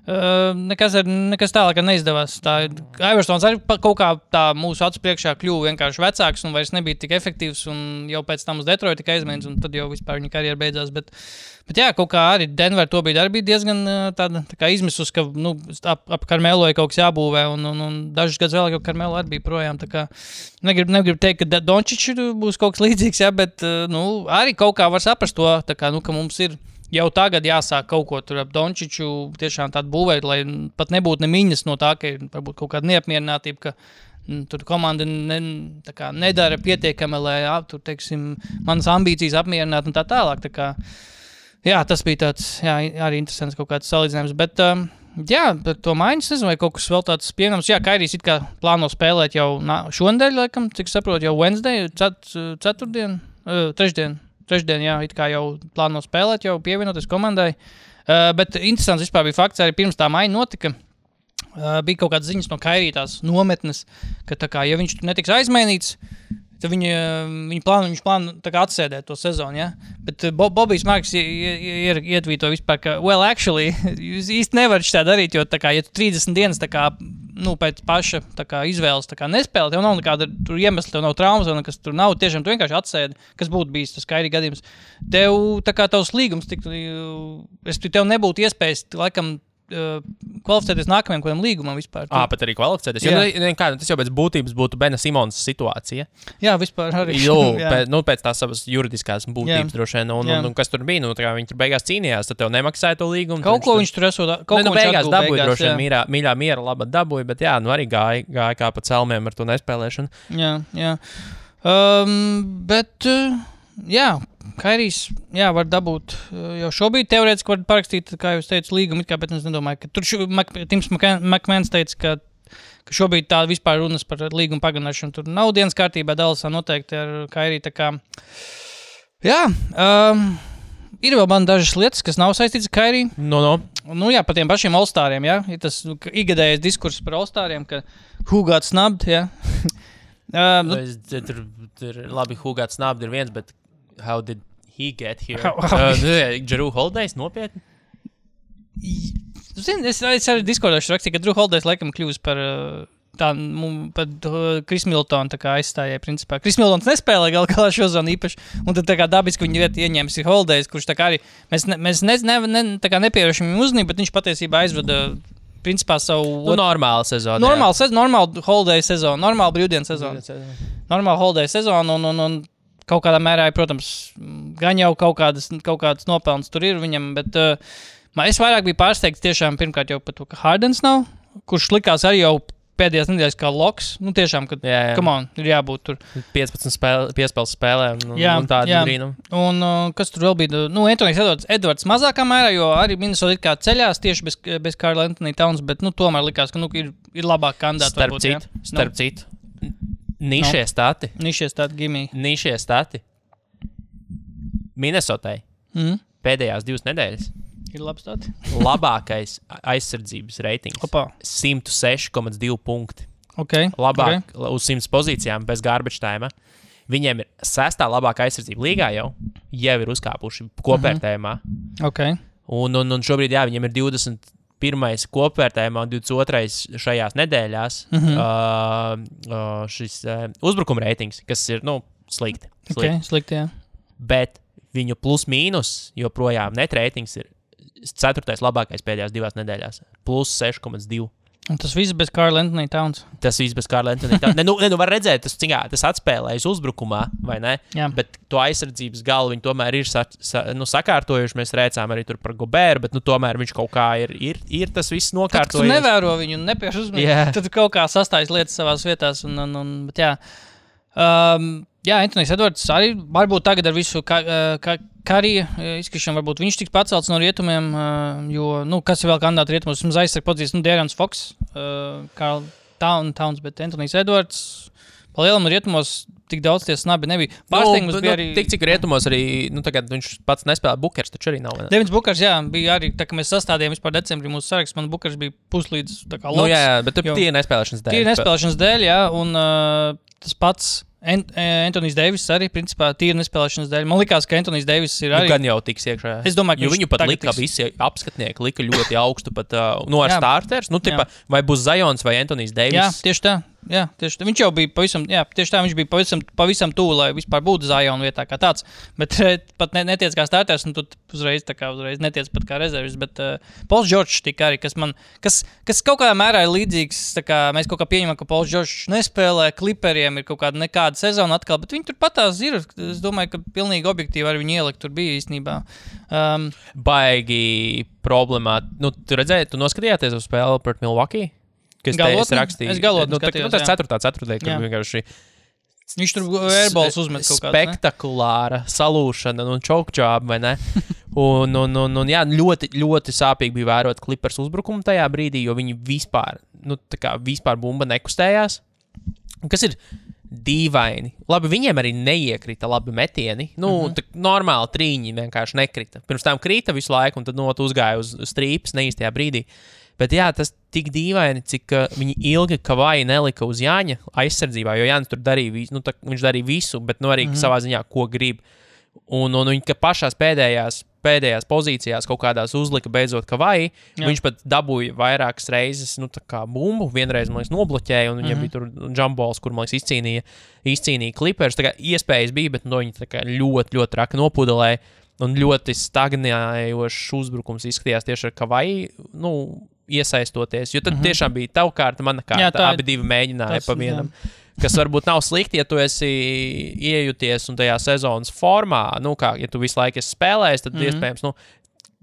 nekas tālāk neizdevās. Iversons arī kaut kā tā mūsu acu priekšā kļuva vienkārši vecāks un vairs nebija tik efektīvs, un jau pēc tam uz Detroit tika aizmainīts, un tad jau vispār viņa karjera beidzās, bet jā, kaut kā arī Denver to bija diezgan tāda tā kā izmisus, ka ap Carmelo ir kaut kas jābūvē, un dažus gadus vēl, ka Carmelo arī bija projām, tā kā negribu teikt, ka Dončič būs kaut kas līdzīgs, jā, bet arī kaut kā var saprast to, tā kā, ka mums ir jau tagad jāsāk kaut ko tur ap Dončiču tiešām tādu būvēt, lai pat nebūtu nemiņas no tā, ka ir varbūt kaut kāda neapmierinātība, ka tur komanda nedara pietiekami, lai tur, teiksim, manas ambīcijas apmierināt un tā tālāk. Tā kā, jā, tas bija tāds, jā, arī interesants kaut kāds salīdzinājums, bet jā, par to maiņas, nezinu, vai kaut kas vēl tāds pieņemams. Jā, Kairijs it kā plāno spēlēt jau šonedēļ, laikam, cik saprotu, jau Wednesday, trešdien, jā, it kā jau plāno spēlēt, jau pievienoties komandai. Bet interesants vispār bija fakts, arī pirms tā maiņa notika, bija kaut kādas ziņas no Kairī tās nometnes, ka tā kā, ja viņš netiks aizmainīts, Tad viņš plāno tā kā atsēdēt to sezonu, ja? Bet Bobijs Marks ietvīto vispār, ka, well, actually, jūs īsti nevarat šitā darīt, jo tā kā, ja tu 30 dienas tā kā, pēc paša tā kā izvēles tā kā nespēlē, tev nav nekāda tur iemesla, tev nav traumas, vai nekas tur nav, tiešām tu vienkārši atsēdi, kas būtu bijis tas Kairi gadījums. Tev, tā kā tavs līgums, tev nebūtu iespējas, laikam, kvalificēties nākamajam kādam līgumam vispār. Pat arī kvalificēties. Tas jau pēc būtības būtu Bena Simons situācija. Jā, vispār arī. Pēc tās savas juridiskās būtības droši vien. Un kas tur bija? Tā kā viņi tur beigās cīnījās, tad tev nemaksāja to līgumu. Kaut ko viņš tur esot. Beigās dabūja droši vien mīļā laba dabūja, bet arī gāja kā pa celmiem ar to nespēlēšanu. Jā. Jā, Kairijs, var dabūt jau šobrīd teorētiski var parakstīt, kā jūs teicu, līgumu, bet es nedomāju, ka tur Tims McMahons teica, ka šobrīd tā vispār runas par līgumu pagarināšanu tur nav dienas kārtībā, Dallasā noteikti ar Kairiju, tā kā, ir vēl man dažas lietas, kas nav saistīts ar Kairiju. Par tiem pašiem All-Stariem, ir tas ikgadējais diskurss par All-Stariem, ka who got snubbed, Tur labi, who got snubbed ir viens, bet how did he get here? Drew Holidays nopietni? Es arī Discordošu rakstīju, ka Drew Holidays laikam kļūs par Chris Middleton tā kā aizstājai principā. Chris Middletons nespēlē galā šo zonu īpaši, un tad tā kā dabiski viņi vietu ieņēmis ir Holidays, kurš tā kā arī, mēs nepievēršam viņu uzmanību, bet viņš patiesībā aizvada principā savu... normālu sezonu. Normālu Holiday sezonu, normālu brīvdienas sezonu. Normālu Holiday sezonu un kaut kādā mērā, protams, gan jau kaut kādas nopelnas tur ir viņam, bet es vairāk biju pārsteigts tiešām pirmkārt jau par to, ka Hardens nav, kurš likās arī jau pēdējās nedēļas kā loks. Tiešām, kad, come on, ir jābūt tur. 15 piespēles spēlē un tādu brīnumu. Un kas tur vēl bija? Anthonijs Edwards mazākā mērā, jo arī Minnesota it kā ceļās tieši bez Karla Anthony Towns, bet tomēr likās, ka ir labāk kandidāti. Starp citu. Nišie stati. Gimī. Nišie stati. Minnesotai. Pēdējās 2 nedēļas. Ir labi stati. Labākais aizsardzības reitings. 106,2 punkti. Labāk uz 100 pozīcijām bez garbage time. Viņiem ir 6. labākā aizsardzība līgā jau ir uzkāpuši kopvērtējumā. Un šobrīd, viņiem ir 21. kopvērtējumā un 22. šajās nedēļās šis uzbrukuma reitings, kas ir, slikti. Slikti, jā. Bet viņu plus mīnus joprojām net reitings ir 4. labākais pēdējās 2 nedēļās. Plus 6,2. Un tas viss bez Karla Anthony Towns. Var redzēt, tas atspēlējas uzbrukumā, vai ne? Jā. Bet to aizsardzības galu viņi tomēr ir sakārtojuši. Mēs rēcām arī tur par Gobēru, bet tomēr viņš kaut kā ir tas viss nokārtojies. Tad, tu nevēro viņu un nepieš uzmanību, tad kaut kā sastājas lietas savās vietās. Bet Anthonijs Edwards arī varbūt tagad ar visu Karija izkrišanu, varbūt viņš tiks pacelts no rietumiem, jo, kas ir vēl kandidāti rietumos, mums aizsarg podzīs, De'Aaron Fox, Karl Towns, bet Anthonijs Edwards, pa lielam rietumos tik daudz tie snabi nebija. Pārsteigums bija arī... Tik cik rietumos arī, tagad viņš pats nespēlē, Bukers taču arī nav. Devins Bukers, bija arī, tā kā mēs sastādījām vispār decembrī mūsu saraksts, man Bukers bija puslīdz tā kā loks. Bet tie nespēlēšanas dēļ. Tie nespēlēšanas dēļ, un tas pats Anthonijs Deivis arī, principā, tīri nespēlēšanas dēļ. Man likās, ka Anthonijs Deivis ir arī... Gan jau tiks iekšā. Es domāju, ka viņu pat lika visi apskatnieki, lika ļoti augstu pat ar starters. Vai būs Zions vai Anthonijs Deivis? Jā, tieši tā. Viņš jau bija viņš bija pavisam tuvu, lai vispār būtu Zion vietā kā tāds. Bet pat netiec kā starters, un tu uzreiz netiec pat kā rezervis. Bet Pauls Džordžs tika arī, kas kaut kādā mērā ir līdzīgs. Mēs kaut kā pieņemam, ka Pauls Džordžs nespēlē, Clipperiem ir kaut kāda nekāda sezona atkal, bet viņi tur patās ir. Es domāju, ka pilnīgi objektīvi arī viņi ielikt tur bija īstenībā. Baigi problemāt. Tu redzēji, tu noskatījāties uz spēli pret Milwaukee? Kas te es rakstīju? Es galotni skatījos, tas 4. kad vienkārši... Viņš tur airballs uzmet kaut kāds, spektakulāra salūšana un choke job, vai ne? un ļoti, ļoti sāpīgi bija vērot Clippers uzbrukumu tajā brīdī, jo viņi vispār bumba nekustējās. Kas ir dīvaini. Labi, viņiem arī neiekrita labi metieni. Normāli trīņi vienkārši nekrita. Pirms tam krita visu laiku, un tad uzgāja uz strīpas neīstajā brīdī. Bet jā, tas tik dīvaini, cik viņi ilgi Kavai nelika uz Jāņa aizsardzībā, jo Jānis tur darīja visu, viņš darīja visu, bet arī savā ziņā, ko grib. Un viņi pašās pēdējās pozīcijās kaut kādās uzlika beidzot Kavai, viņš pat dabūja vairākas reizes, tā kā bumbu, vienreiz, man liekas, nobloķēja, un viņiem bija tur jumpballs, kur, man liekas, izcīnīja Clippers, tā kā iespējas bija, bet viņi tā kā ļoti, ļoti traki nopudelēja, un ļoti stagnējošs uzbrukums izskatījās tieši ar Kavai, iesaistoties, jo tad tiešām bija tava kārta, mana kārta, abi divi mēģināja pa vienam. Kas varbūt nav slikti, ja tu esi iejūties un tajā sezonas formā, ja tu visu laiku esi spēlējis, tad iespējams,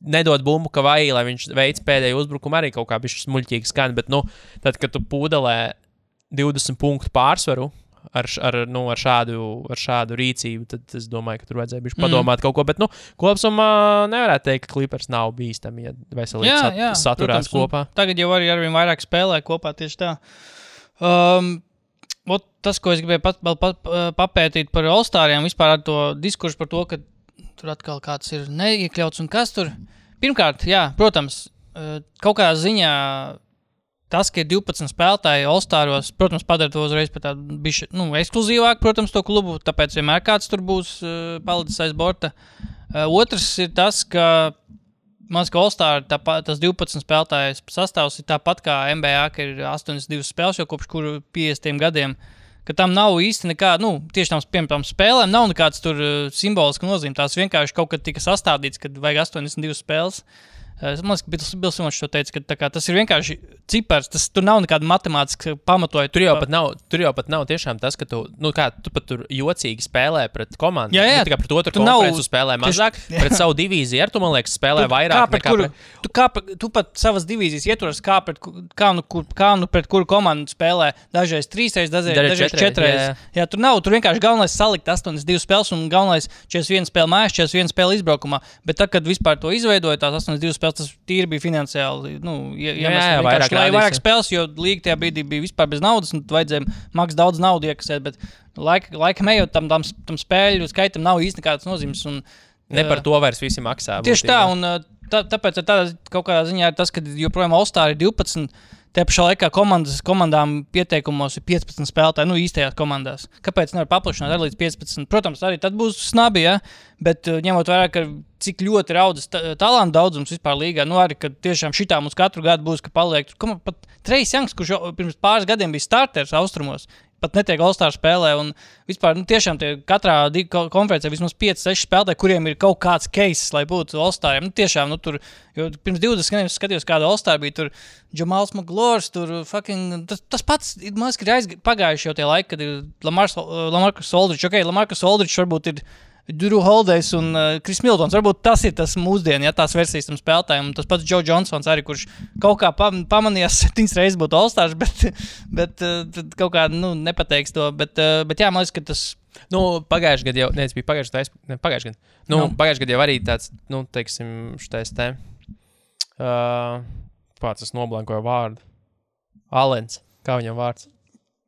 nedod bumbu Kavai, lai viņš veic pēdējo uzbrukumu arī kaut kā bišķi smuļķīgi skan, bet, tad, kad tu pūdelē 20 punktu pārsvaru ar šādu rīcību, tad es domāju, ka tur vajadzēja bišķi padomāt kaut ko, bet, kopsumā nevarētu teikt, ka Clippers nav bīstami, ja veselīgi saturās kopā. Tagad jau arī arvien vairāk spēlē kopā tieši tā. Tas, ko es gribēju papētīt par All-Stariem, vispār ar to diskursu par to, ka tur atkal kāds ir neiekļauts un kas tur. Pirmkārt, jā, protams, kaut kādā ziņā tas, ka ir 12 spēlētāji All-Staros, protams, padara to uzreiz par tādu bišķi, ekskluzīvāk, protams, to klubu, tāpēc vienmēr kāds tur būs palicis aiz borta. Otrs ir tas, ka man liekas, ka All-Star tas 12 spēlētājs sastāvs ir tāpat kā NBA, ka ir 82 spēles jau kopš kuru 50 gadiem, ka tam nav īsti nekā, tieši tām spēlēm nav nekāds tur simboliski nozīme. Tās vienkārši kaut kad tika sastādīts, kad vajag 82 spēles. Man liekas, ka Bils Simons to teica, ka tas ir vienkārši cipars, tur nav nekāda matemātiska pamatoja. Tur jau pat nav tiešām tas, ka tu pat tur jocīgi spēlē pret komandu. Jā. Ne tikai pret otru konferenci spēlē mazāk, pret savu divīziju, tu, man liekas, spēlē vairāk nekā tu pat savas divīzijas ieturas, kā pret kuru komandu spēlē. Dažreiz 3 reizes, dažreiz 4 reizes. Jā, tur vienkārši galvenais salikt 82 spēles un galvenais 41 spēle mājās, 41 spēle izbraukumā. Bet tad, kad vispār to izveidoja, tās 82 spēles, tas tīri bija finansiāli, vairāk spēles, jo līga tajā brīdī bija vispār bez naudas, un vajadzēja maks daudz naudu iekasēt, bet laikam ejot tam spēļu skaitam nav īsti nekādas nozīmes. Ne par to vairs visi maksā. Tieši tā, un tāpēc kaut kādā ziņā ir tas, ka joprojām All-Star ir 12, te pašā laikā komandām pieteikumos ir 15 spēlētāji, īstajās komandās. Kāpēc nevar paplašināt arī līdz 15? Protams, arī tad būs snabi, ja? Bet ņemot vērā, ka cik ļoti raudas talantu daudzums vispār līgā, arī, ka tiešām šitā mums katru gadu būs, ka paliek. Pat Trejs Jangs, kurš pirms pāris gadiem bija starters Austrumos, pat netiek All-Star spēlē, un vispār tiešām katrā konferencē vismaz 5-6 spēlētāji, kuriem ir kaut kāds case, lai būtu All-Stariem. Tiešām, tur, jo pirms 20 gadiem skatījos, kāda All-Star bija, tur Jamals Maglors, tur tas pats, man liekas, ir pagājuši jau tie laiki, kad ir Lamarcus Aldridge. Lamarcus Aldridge varbūt ir Drew Holiday's un Chris Middletons. Varbūt tas ir tas mūsdienu, tās versijas tam spēlētājiem. Tas pats Joe Johnsons arī, kurš kaut kā pamanījās 7 reizes būt All-Stars, bet kaut kā, nepateiks to. Bet jā, man liekas, ka tas... Pagājuši gadu jau, bija pagājuši gadu. Pagājuši gadu jau arī tāds, teiksim, šitais te... Pats es noblankoju vārdu. Alens, kā viņam vārds?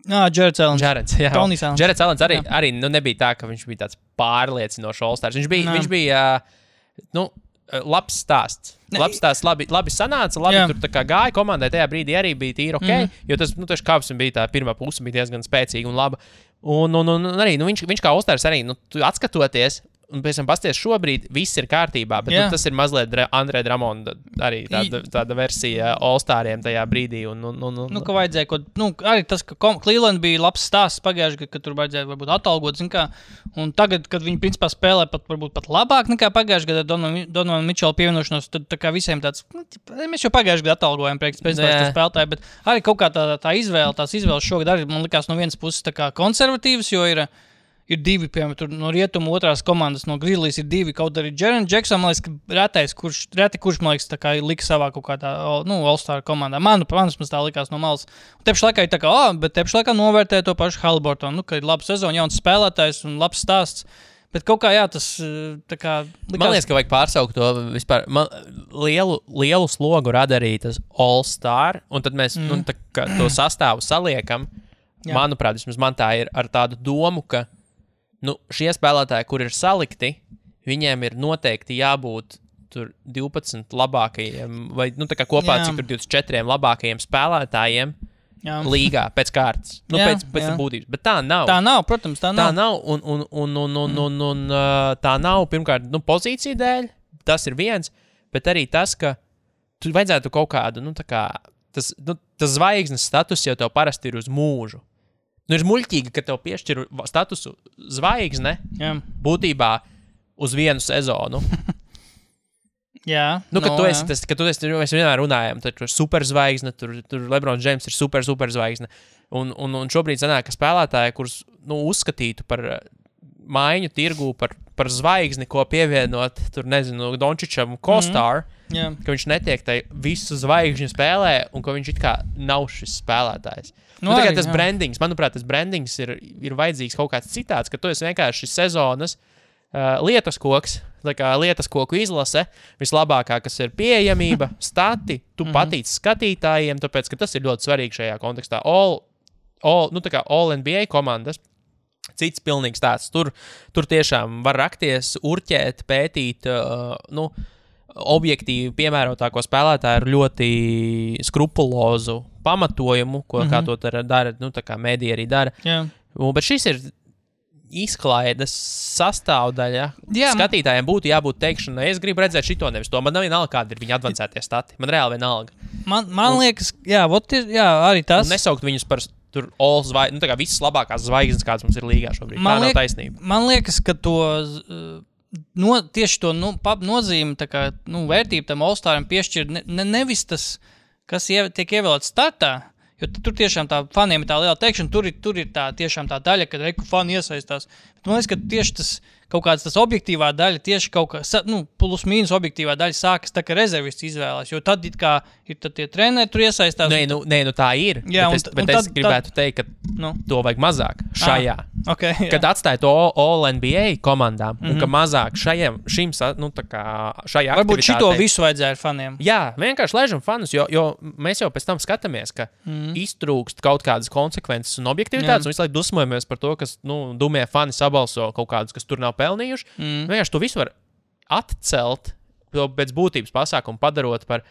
Jareds Alens. Jareds Alens arī nebija tā, ka viņš bija tāds pārliecinošs All-Stars. Viņš bija labs stāsts. Labi sanāca, tur tā kā gāja komandai, tajā brīdī arī bija tīri ok, jo tas, tieši kāpsim bija tā pirmā puse, bija diezgan spēcīga un laba. Un arī, viņš kā All-Stars arī, tu atskatoties, un pēc tam pasties šobrīd viss ir kārtībā, bet tas ir mazliet Andrē Dramonda arī tāda versija All-Stariem tajā brīdī. Ka vajadzēja, arī tas, ka Cleveland bija labs stāsts pagājuši, ka tur vajadzēja varbūt atalgot, un tagad, kad viņi principā spēlē varbūt pat labāk nekā pagājuši gadu Donovan Mitchell pievienošanos, tad tā kā visiem tāds, mēs jau pagājuši gadu atalgojam priekš spēlētāji, bet arī kaut kā tās izvēles šogad arī, man likās no vienas puses tā kā konservatīvas, jo ir divi, piemēram, no rietumu otrās komandas, no Grizzlies ir divi, kaut arī Jaren Jackson, man liekas, reti kurš, man liekas, tā kā lika savā kaut kādā, All-Star komandā. Manas tā likās no malas. Tepši laikā ir tā kā, bet tepši laikā novērtē to pašu Haliburtonu, ka ir laba sezona, jauns spēlētājs un labs stāsts. Bet kaut kā, tas tā kā... Man liekas, ka vajag pārsaukt to vispār. Lielu slogu rada arī tas All-Star, un tad mēs to sastāvu saliekam. Manuprāt, vismaz man tā ir ar tādu domu, ka šie spēlētāji, kur ir salikti, viņiem ir noteikti jābūt tur 12 labākajiem, vai tā kā kopā cik tur 24 labākajiem spēlētājiem līgā pēc kārtas. Pēc būtības. Bet tā nav. Tā nav, protams, tā nav. Tā nav, un tā nav, pirmkārt, pozīcija dēļ, tas ir viens, bet arī tas, ka tu vajadzētu kaut kādu, tas zvaigznes status jau tev parasti ir uz mūžu. Ir muļķīgi, ka tev piešķir statusu zvaigzne būtībā uz vienu sezonu. Jā. Tu esi tas, ka mēs vienmēr runājam, tur ir superzvaigzne, tur LeBron James ir superzvaigzne. Un šobrīd sanāk, ka spēlētāji, kurus uzskatītu par maiņu tirgu, par zvaigzni, ko pievienot, tur nezinu, Dončičam Kostāru, ka viņš netiek tai visu zvaigžņu spēlē un ka viņš it kā nav šis spēlētājs. Arī, tas brandings, manuprāt, tas brandings ir vajadzīgs kaut kāds citāds, ka tu esi vienkārši sezonas lietas koks, lietas koku izlase, vislabākā, kas ir pieejamība, stati, tu patīc skatītājiem, tāpēc, ka tas ir ļoti svarīgi šajā kontekstā. All NBA komandas, cits pilnīgs tāds, tur tiešām var rakties, urķēt, pētīt, objektīvi piemērotāko spēlētāju ar ļoti skrupulozu pamatojumu, kā to dara, tā kā mediji arī dara. Bet šis ir izklaides sastāvdaļa. Skatītājiem būtu jābūt teikšanai, es gribu redzēt šito, nevis to. Man nav vienalga, kādi ir viņa advancētie stati. Man reāli vienalga. Man liekas, arī tas. Un nesaukt viņus par tur visas labākās zvaigznes, kādas mums ir līgā šobrīd. Tā nav taisnība. Man liekas, ka tieši to nozīmi, vērtību tam All-Staram piešķir nevis tas, kas tiek ievēlēts startā, jo tur tiešām tā faniem ir tā liela teikšana, tur ir tā tiešām tā daļa, kad fani iesaistās. Bet man liekas, ka tieši tas kaut kāds tas objektīvā daļa, tieši kaut kā, plus mīnus objektīvā daļa sākas tā, ka rezervists izvēlās, jo tad ir tad tie treneri tur iesaistās. Tā ir. Jā, bet es gribētu teikt, ka to vajag mazāk šajā. Kad atstāja to All NBA komandām, un ka mazāk šajā aktivitātei. Varbūt šito visu vajadzēja ar faniem. Jā, vienkārši lēžam fanus, jo mēs jau pēc tam skatāmies, ka iztrūkst kaut kādas konsekvences un objektivitātes, un visu laiku dusmojamies par to, kas, dumie fani sabalso kaut kādus, kas tur nav pelnījuši. Vienkārši to visu var atcelt pēc būtības pasākumu, padarot par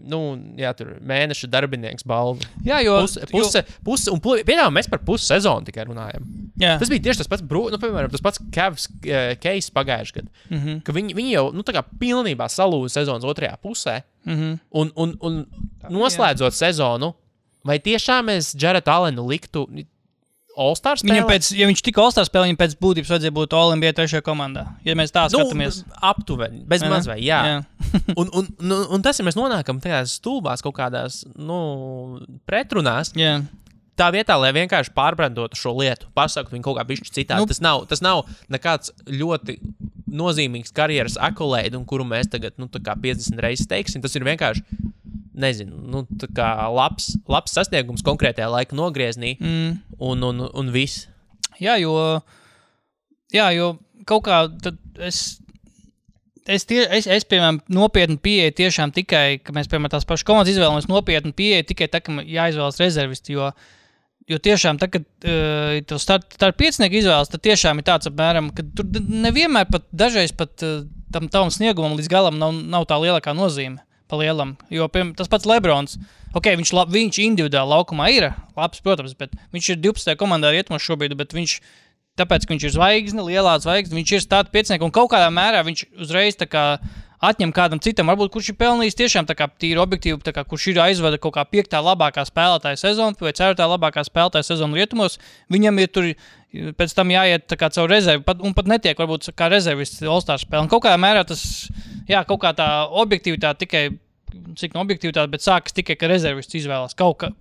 tur mēneša darbinieks balvu. Jā, jo un pieņemam, mēs par pusi sezonu tikai runājam. Jā. Tas bija tieši tas pats, piemēram, tas pats Cavs case pagājuši gadu, ka viņi jau, pilnībā salūza sezonas otrajā pusē, un noslēdzot sezonu, vai tiešām mēs Jaretu Allenu liktu All-Star spēlē? Ja viņš tika All-Star spēlē, viņam pēc būtības vajadzēja būt All-NBA 3. komandā. Ja mēs tā skatāmies. Aptuveni, bez mazvai, jā. un tas, ja mēs nonākam tajās stulbās kaut kādās, pretrunās, tā vietā, lai vienkārši pārbrandotu šo lietu, pasaktu viņu kaut kā bišķi citādi. Tas nav nekāds ļoti nozīmīgs karjeras akolēdi, un kuru mēs tagad, 50 reizes teiksim. Tas ir vienkārši, nezinu, labs sasniegums konkrētajā laika nogrieznī, un viss. Jā, jo kaut kā tad es piemēram, nopietni pieeju tiešām tikai, ka mēs, piemēram, tās pašas komandas izvēlamies nopietni pieeju tikai tā, ka jāizvēlas rezervisti, jo tiešām, tā, kad tev start piecinieku izvēlas, tad tiešām ir tāds apmēram, ka tur nevienmēr dažreiz pat tam tavam sniegumam līdz galam nav tā lielākā nozīme. Palielam, jo tas pats Lebrons, viņš individuāli laukumā ir labs, protams, bet viņš ir 12. komandā rietumos šobrīd, bet tāpēc, ka viņš ir zvaigzne, lielā zvaigzne, viņš ir starta piecinieks, un kaut kādā mērā viņš uzreiz atņem kādam citam, varbūt kurš ir pelnījis tiešām tīri objektīvi, kurš ir aizvada kaut kā 5. labākā spēlētāja sezona vai 4. labākā spēlētāja sezona rietumos, viņam ir tur pēc tam jāiet caur rezervi, un pat netiek varbūt kā rezervists All-Star spēle. Un kaut kādā mērā tas, kaut kā tā objektivitāte tikai, cik no objektivitāte, bet sākas tikai, ka rezervists izvēlās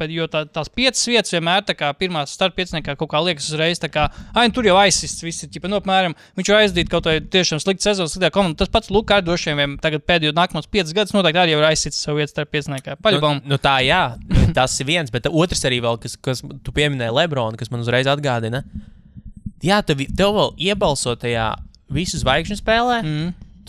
jo tās 5 vietas vienmēr pirmās starta pieciniekā kaut kā liekas uzreiz, tur jau aizsists viss ir, apmēram, viņš jau aizdīt kaut vai tiešām slikta sezonas, sliktā komanda. Tas pats Luka Ardošiem tagad pēdējo nākamos 5 gadus noteikti arī jau ir aizsists savu vietu starta pieciniekā. Paļabam. Tā, jā, tas ir viens, bet otrs arī vēl, kas tu pieminēji Lebronu, kas man uzreiz atgādina. Jā, tev vēl iebalso tajā visu zvaigžņu spēlē,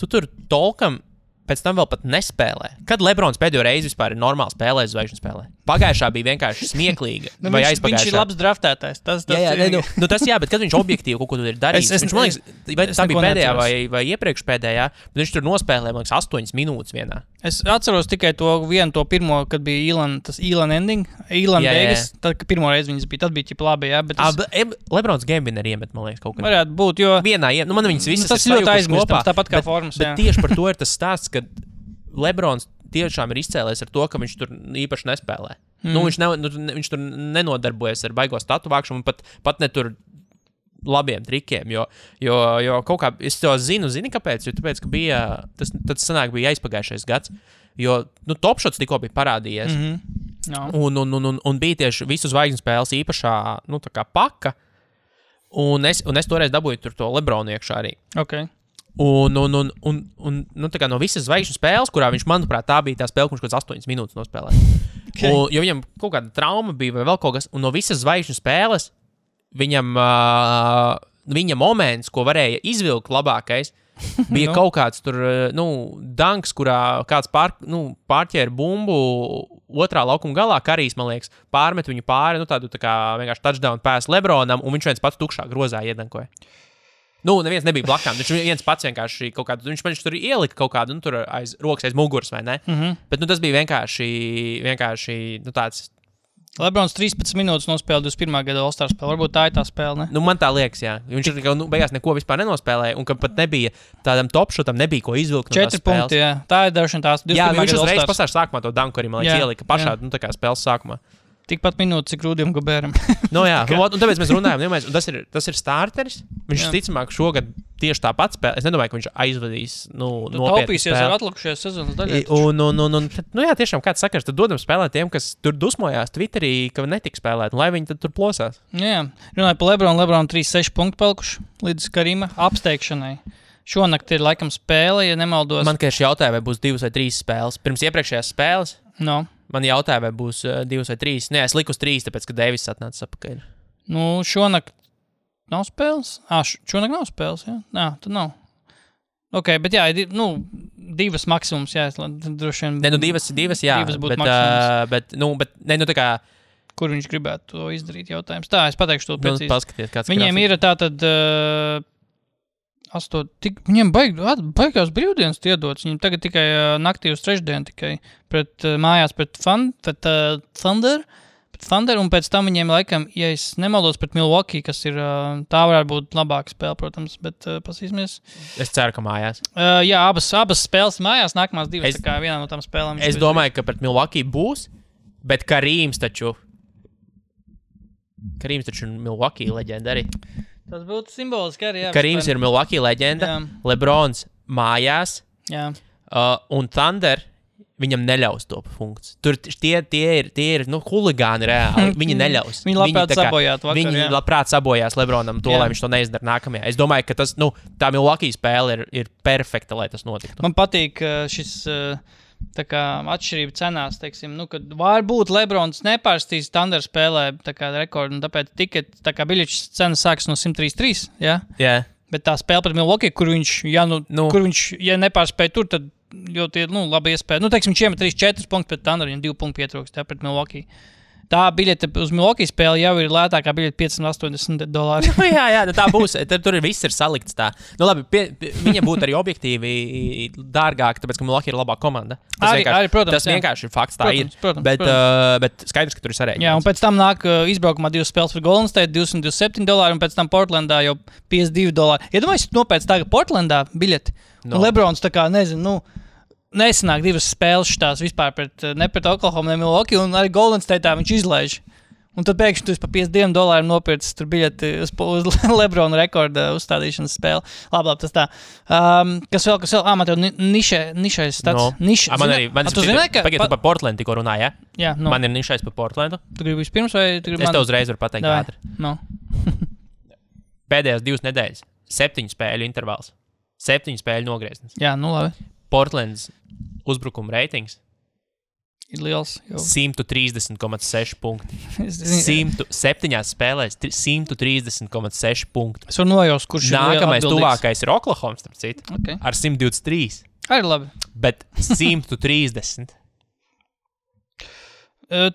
tu tur tolkam pēc tam vēl pat nespēlē. Kad Lebrons pēdējo reizi vispār ir normāli spēlējis zvaigžņu spēlē? Pagājušā bija vienkārši smieklīga. Vai viņš ir labs draftētājs. Tas jā, bet kad viņš objektīvi kaut ko tur ir darījis, viņš, man liekas, vai tā bija pēdējā vai iepriekš pēdējā, bet viņš tur nospēlēja, man liekas, 8 minūtes vienā. Es atceros tikai to pirmo, kad bija Elan ending, Elan Vegas, tad, kad pirmo reizi viņas bija, tad bija ķipa labi, jā, bet Lebrons game winner iemet, man liekas, kaut kad. Varētu būt, jo vienā, man viņas visas tas ļoti aizmirstams, tāpat kā formas, bet tieši par to ir tas stāsts, ka Lebrons tiešām ir izcēlējis ar to, ka viņš tur īpaši nespēlē. Viņš tur nenodarbojas ar baigo statu vākšanu, pat ne tur labiem trikiem, jo kaut kā, es to zini kāpēc, jo tāpēc, ka bija, tas sanāk bija aizpagājušais gads, jo, Topshots tikko bija parādījies, un bija tieši visu zvaigžņu spēles īpašā, tā kā paka, un es toreiz dabūju tur to Lebronu iekšā arī. Okay. Un tā kā no visas zvaigžņu spēles, kurā viņš, manuprāt, tā bija tā spēle, kurš kaut kāds 8 minūtes nospēlēja. Okay. Jo viņam kaut kāda trauma bija vai vēl kaut kas, un no visas zvaigžņu spēles viņa moments, ko varēja izvilkt labākais, bija kaut kāds tur, danks, kurā kāds pārķēra bumbu otrā laukuma galā, Karijs, man liekas, pārmet viņu pāri, tādu tā kā vienkārši touchdown pass Lebronam, un viņš viens pats tukšā grozā iedankoja. Neviens nebija blakām, viņš viens pats vienkārši kaut kādu, viņš tur ielika kaut kādu, tur aiz rokas, aiz muguras, vai ne? Bet, tas bija vienkārši tāds. Lebrons 13 minūtes nospēlēja 21. gada All-Star spēli. Varbūt tā ir tā spēle, ne? Man tā liekas, jā. Viņš beigās neko vispār nenospēlēja, un ka pat nebija tādam topšotam, nebija ko izvilkt no tās 4 punkti, jā. Tā ir dažana tās 21. Jā, viņš gada uzreiz All-Stars. pasāž sākumā to danku arī, man liekas, ielika pašā, tā kā spēles sākumā. Tikpat minūtes, cik Rūdiem Gobēram. Jā, un tāpēc mēs runājam, un tas ir starteris. Viņš ticamāk šogad tieši tāpat spēlē. Es nedomāju, ka viņš aizvadīs, nopietni taupīsies ar atlikušajās sezonas daļai. Jā, tiešām kāds sakars, tad dodam spēlēt tiem, kas tur dusmojās Twitterī, ka netika spēlēt, un lai viņi tad tur plosās. Jā, runāju par Lebronu 3-6 punktu palikuši līdz Karima apsteigšanai. Šonakt ir laikam spēle, ja nemaldos. Man tieši jautāja, vai būs 2 vai 3 spēles. Pirms iepriekšējās spēles. Man jautāja, vai būs 2 vai 3. Nē, es liku uz 3, tāpēc, ka Deivis atnāca apakaļ. Šonakt nav spēles? Šonakt nav spēles, jā? Jā, tad nav. Ok, bet jā, 2 maksimums, jā, droši vien. Nē, 2, jā. 2 būtu maksimums. Bet, tā kā. Kur viņš gribētu to izdarīt, jautājums? Tā, es pateikšu to precīzi. Paskaties, kāds viņiem ir tātad... Viņiem baigās brīvdienas iedots. Viņiem tagad tikai naktī uz trešdienu tikai mājās pret Thunder, un pēc tam viņiem laikam, ja es nemaldos, pret Milwaukee, kas ir, tā varētu būt labāka spēle, protams, bet pasīsimies. Es ceru, ka mājās. Jā, abas spēles mājās, nākamās 2, tā kā vienā no tām spēlēm. Es domāju, ka pret Milwaukee būs, bet Karīms taču Milwaukee leģenda arī. Tas būtu simboliski arī. Jā, Karīms ir Milwaukee leģenda, jā. Lebrons mājās, jā. Un Thunder viņam neļaus to funkciju. Tur tie ir huligāni reāli. Viņi neļaus. Viņi labprāt sabojāt vakar, viņi labprāt sabojās Lebronam to, lai viņš to neizdara nākamajā. Es domāju, ka tas, tā Milwaukee spēle ir perfekta, lai tas notiktu. Man patīk šis... Tā kā atšķirība cenās, teiksim, kad varbūt Lebrons nepārstīs Thunder spēlē tā kā rekordu, un tāpēc biļetes cenas sākas no 133, jā? Jā. Bet tā spēle pret Milwaukee, kur viņš, kur viņš, ja nepārspēja tur, tad ļoti, labi iespēja. Teiksim, viņš iemet 3-4 punktus pret Thunder, viņam 2 punktu pietrūkst, jā, pret Milwaukee. Tā biļete uz Milwaukee spēli jau ir lētākā biļete $580. Jā, tā būs. Tur viss ir salikts tā. Labi, viņa būtu arī objektīvi dārgāk, tāpēc, ka Milwaukee ir labā komanda. Tas vienkārši ir fakts, tā ir. Bet skaidrs, ka tur ir sarēķināts. Jā, un pēc tam nāk izbraukumā 2 spēles par Golden State, $227, un pēc tam Portlandā jau $52. Iedomājies, nopēc tagad Portlandā biļeti. Un Lebrons tā kā, nezinu, nesanāk 2 spēles šitās vispār ne pret Oklahoma, ne Milwaukee, un arī Golden State'ā viņš izlaiž. Un tad pēkšņi tu par $52 nopircis tur biļeti uz Lebrona rekorda uzstādīšanas spēli. Labi, tas tā. Kas vēl? Man tev nišais stats. Tu zināji, ka... Pagaid, tu par Portlandu tikko runāji, ja? Jā, Man ir nišais par Portlandu. Tu gribi vispirms vai tu gribi Es tev uzreiz varu pateikt ātri. Pēdējās 2 nedēļas. 7 spēļu intervāls. 7 spēļu nogrieznis. Jā, labi. Portlands uzbrukuma reitings ir liels. 130,6 punkti. 7 spēlēs 130,6 punkti. Es varu nojaust, kurš nākamais tuvākais ir Oklahoma, starp citu, ar 123. Arī labi. Bet 130.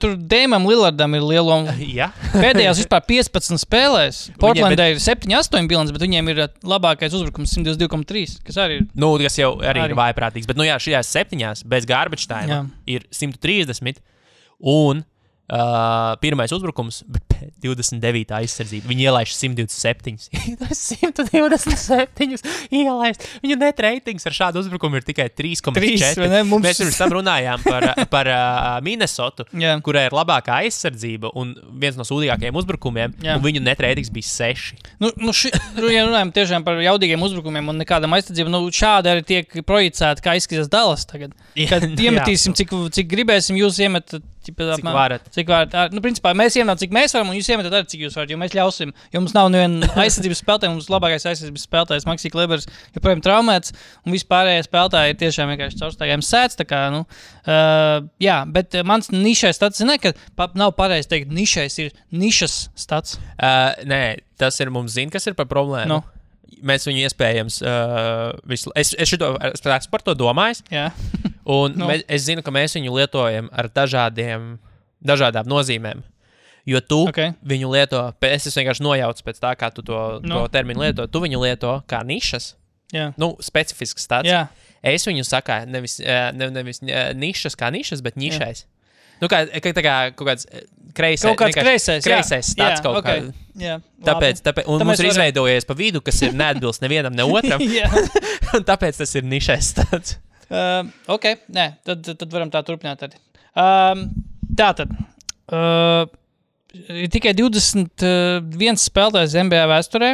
Tur Dēmam Lillardam ir liela Jā. pēdējās vispār 15 spēlēs. Portlandē ir 7-8 bilants, bet viņiem ir labākais uzbrukums 122,3, kas arī ir. Nu, kas jau arī ir vājprātīgs. Bet, šajās 7 bez garbage time ir 130 un pirmais uzbrukums, bet 29. aizsardzība. Viņi ielaiž 127. 127 ielaist. Viņu net ratings ar šādu uzbrukumu ir tikai 3,4. Mēs pirms tam runājām par Minnesotu, kurai ir labākā aizsardzība un viens no sūdīgākajiem uzbrukumiem, un viņu net ratings bija 6. Ja runājam tiešām par jaudīgiem uzbrukumiem un nekādam aizsardzību, šādi arī tiek projicēti, kā izskatās Dallas tagad. Kad iemetīsim, cik gribēsim, jūs iemetat, cik varat. Principā mēs iemetam, cik mēs varam, un jūs iemetat arī, cik jūs varat, jo mēs ļausim. Jo mums nav neviena aizsardzības spēlētāja, mums labākais aizsardzības spēlētājs Maxi Klebers joprojām traumēts, un vispārējie spēlētāji ir tiešām vienkārši caurstaigājiem sēts. Bet mans nišais stats, ka nav pareizi teikt, nišais ir nišas stats. Nē, tas ir mums kas ir par problēmu. Mēs viņu iespējams, es par to domājis, un es zinu, ka mēs viņu lietojam ar dažādām nozīmēm, jo tu viņu lieto, es vienkārši nojaucu pēc tā, kā tu to terminu lieto, tu viņu lieto kā nišas, specifisks stats. Es viņu saku nevis nišas kā nišas, bet nišais. Kā kaut kāds kreisais stats kaut kā. Tāpēc un mums ir izveidojies pa vidu, kas ir neatbilst nevienam, ne otram. Un tāpēc tas ir nišais stats. Tad varam tā turpināt arī. Tātad. Ir tikai 21 spēlētājs NBA vēsturē,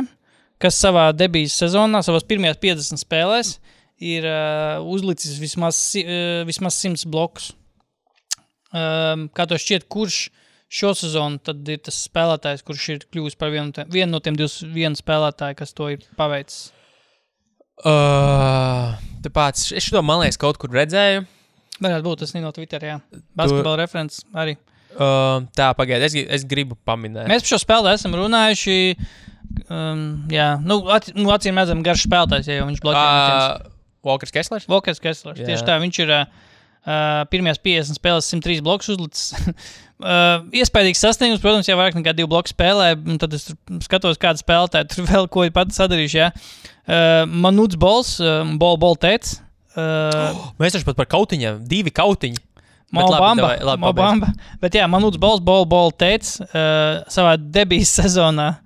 kas savā debijas sezonā, savās pirmajās 50 spēlēs, ir uzlicis vismaz 100 blokus. Kā to šķiet, kurš šo sezonu tad ir tas spēlētājs, kurš ir kļuvis par vienu no tiem 21 spēlētāji, kas to ir paveicis? Tāpēc es to, man liekas, kaut kur redzēju. Varētu būt, tas no Twitter, Basketbala referents arī. Tā, pagaid, es gribu paminēt. Mēs par šo spēlē esam runājuši, acīm redzam garš spēlētājs, ja jau viņš bloķē. Walkers Kesslers? Tieši tā, viņš ir pirmajās 50 spēlēs 103 blokus uzlicis. Iespējīgs sasniegums, protams, jau vairāk nekā 2 bloku spēlē, un tad es skatos, kāda spēlētāja tur vēl ko ir pati sadarījuši, Manuts Bols, Bol teica. Mēs taču pat par kautiņiem, 2 kautiņi. Bamba. Bet Manuts Bols, Bol teica, savā debijas sezonā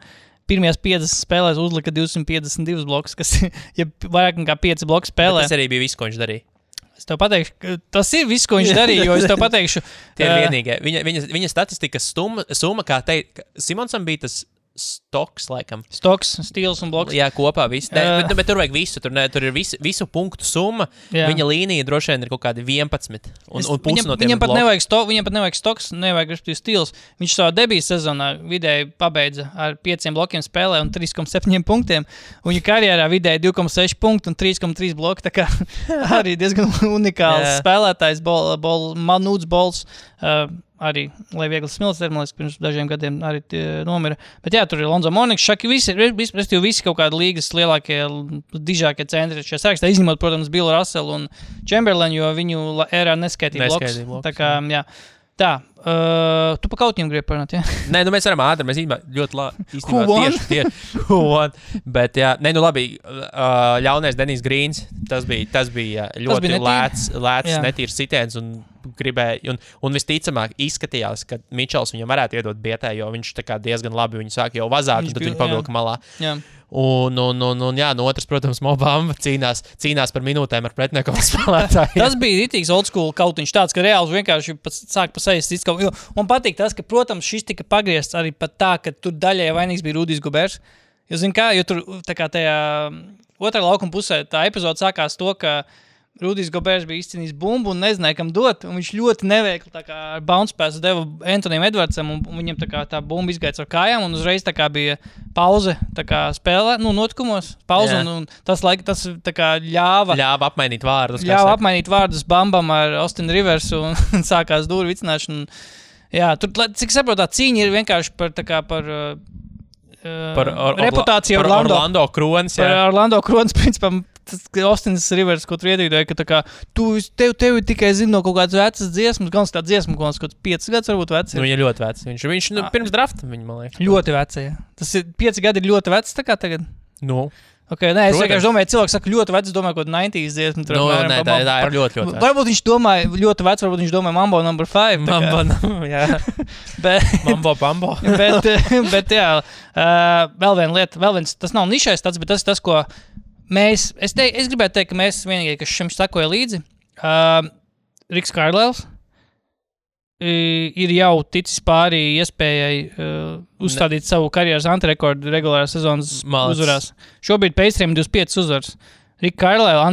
pirmajās 50 spēlēs uzlika 252 blokus, kas ir vairāk nekā 5 bloku spēlē. Bet tas arī bija viss, ko viņš darīja. Es tev pateikšu, tas ir viss, ko viņš darīja, jo es tev pateikšu. Tie ir vienīgie. Viņa statistikas summa, kā teikt, Simonsam bija tas stoks, laikam. Stoks, stils un bloks. Jā, kopā viss. Bet tur vajag visu. Tur ir visu punktu summa. Viņa līnija droši vien ir kaut kādi 11. Un pusi no tiem viņam pat nevajag stoks, nevajag stils. Viņš savā debijas sezonā vidēji pabeidza ar 5 blokiem spēlē un 3,7 punktiem. Un viņa karjerā vidēji 2,6 punktu un 3,3 bloki. Tā kā arī diezgan unikāls spēlētājs, Manuts Bols. Arī, lai viegli smilts termālis, pirms dažiem gadiem arī nomira. Bet tur ir Lonzo Mourning, Šaki, visi kaut kādi līgas lielākie, dižākie centri šajā sarakstā, izņemot, protams, Billu Russellu un Chamberlainu, jo viņu ērā neskaitīja bloks. Tā kā, tu pa kautņiem gribi parunāt, Nē, mēs varam ātri, mēs ļoti tieši. Bet, labi, ļaunais Denijs Grīns, tas bija ļoti lēts netīrs sitiens un gribēja, un visticamāk izskatījās, ka Mičels viņam varētu iedot bietē, jo viņš tā kā diezgan labi viņu sāk jau vazāt, un tad viņu pavilka malā. Un otrs, protams, Mobamba cīnās par minūtēm ar pretnieku spēlētāju. Tas bija ritīgs old school kautiņš tāds, ka reāls vienkārši sāk pa sejas cits kaut. Man patīk tas, ka, protams, šis tika pagriezts arī pat tā, ka tur daļai vainīgs bija Rudijs Gobers. Jo tur tā kā tajā otrā laukuma pusē tā epizode sākās to, ka Rudijs Gobers bija izcīnījis bumbu un nezināja, kam dot, un viņš ļoti neveikli tā kā ar bounce pass deva Antonijam Edwardsam, un viņam tā kā tā bumba izgāja ar kājām, un uzreiz tā kā bija pauze tā kā spēlē, notikumos, pauze, un tas tā kā ļāva apmainīt vārdus. Apmainīt vārdus Bambam ar Austin Riversu, un sākās dūri vicināšana. Tur, cik saprot, tā cīņa ir vienkārši par reputāciju Orlando Kronis. Par Orlando Kronis, principā, Austins Rivers, ko tu iedīdoji, ka tā kā tev tikai zina no kaut kādas vecas dziesmas, gan tā dziesma, kaut kāds 5 gadus varbūt vecs. Nu, viņa ļoti vecs. Viņš pirms drafta, man liekas. Ļoti vecs, jā. Tas ir 5 gadi ir ļoti vecs, tā kā tagad. Nu. Okay, nē, es vienkārši domāju, cilvēks saka ļoti vecs, domāju, kaut 90s dziesmu. Nē, tā ir ļoti vecs. Varbūt viņš domāja ļoti vecs, varbūt viņš domāja Mambo No. 5. Jā. Mambo. bet jā, vēl viena lieta, tas nav nišais tāds, bet tas ir tas, ko mēs, es gribētu teikt, ka mēs vienīgie, kas šim sakoja līdzi, Riks Kārlēls ir jau ticis pārī iespējai uzstādīt savu karjeras antirekordu regulārās sezonas uzvarās. Šobrīd Pacers 25 uzvaras. Rika Kārlēla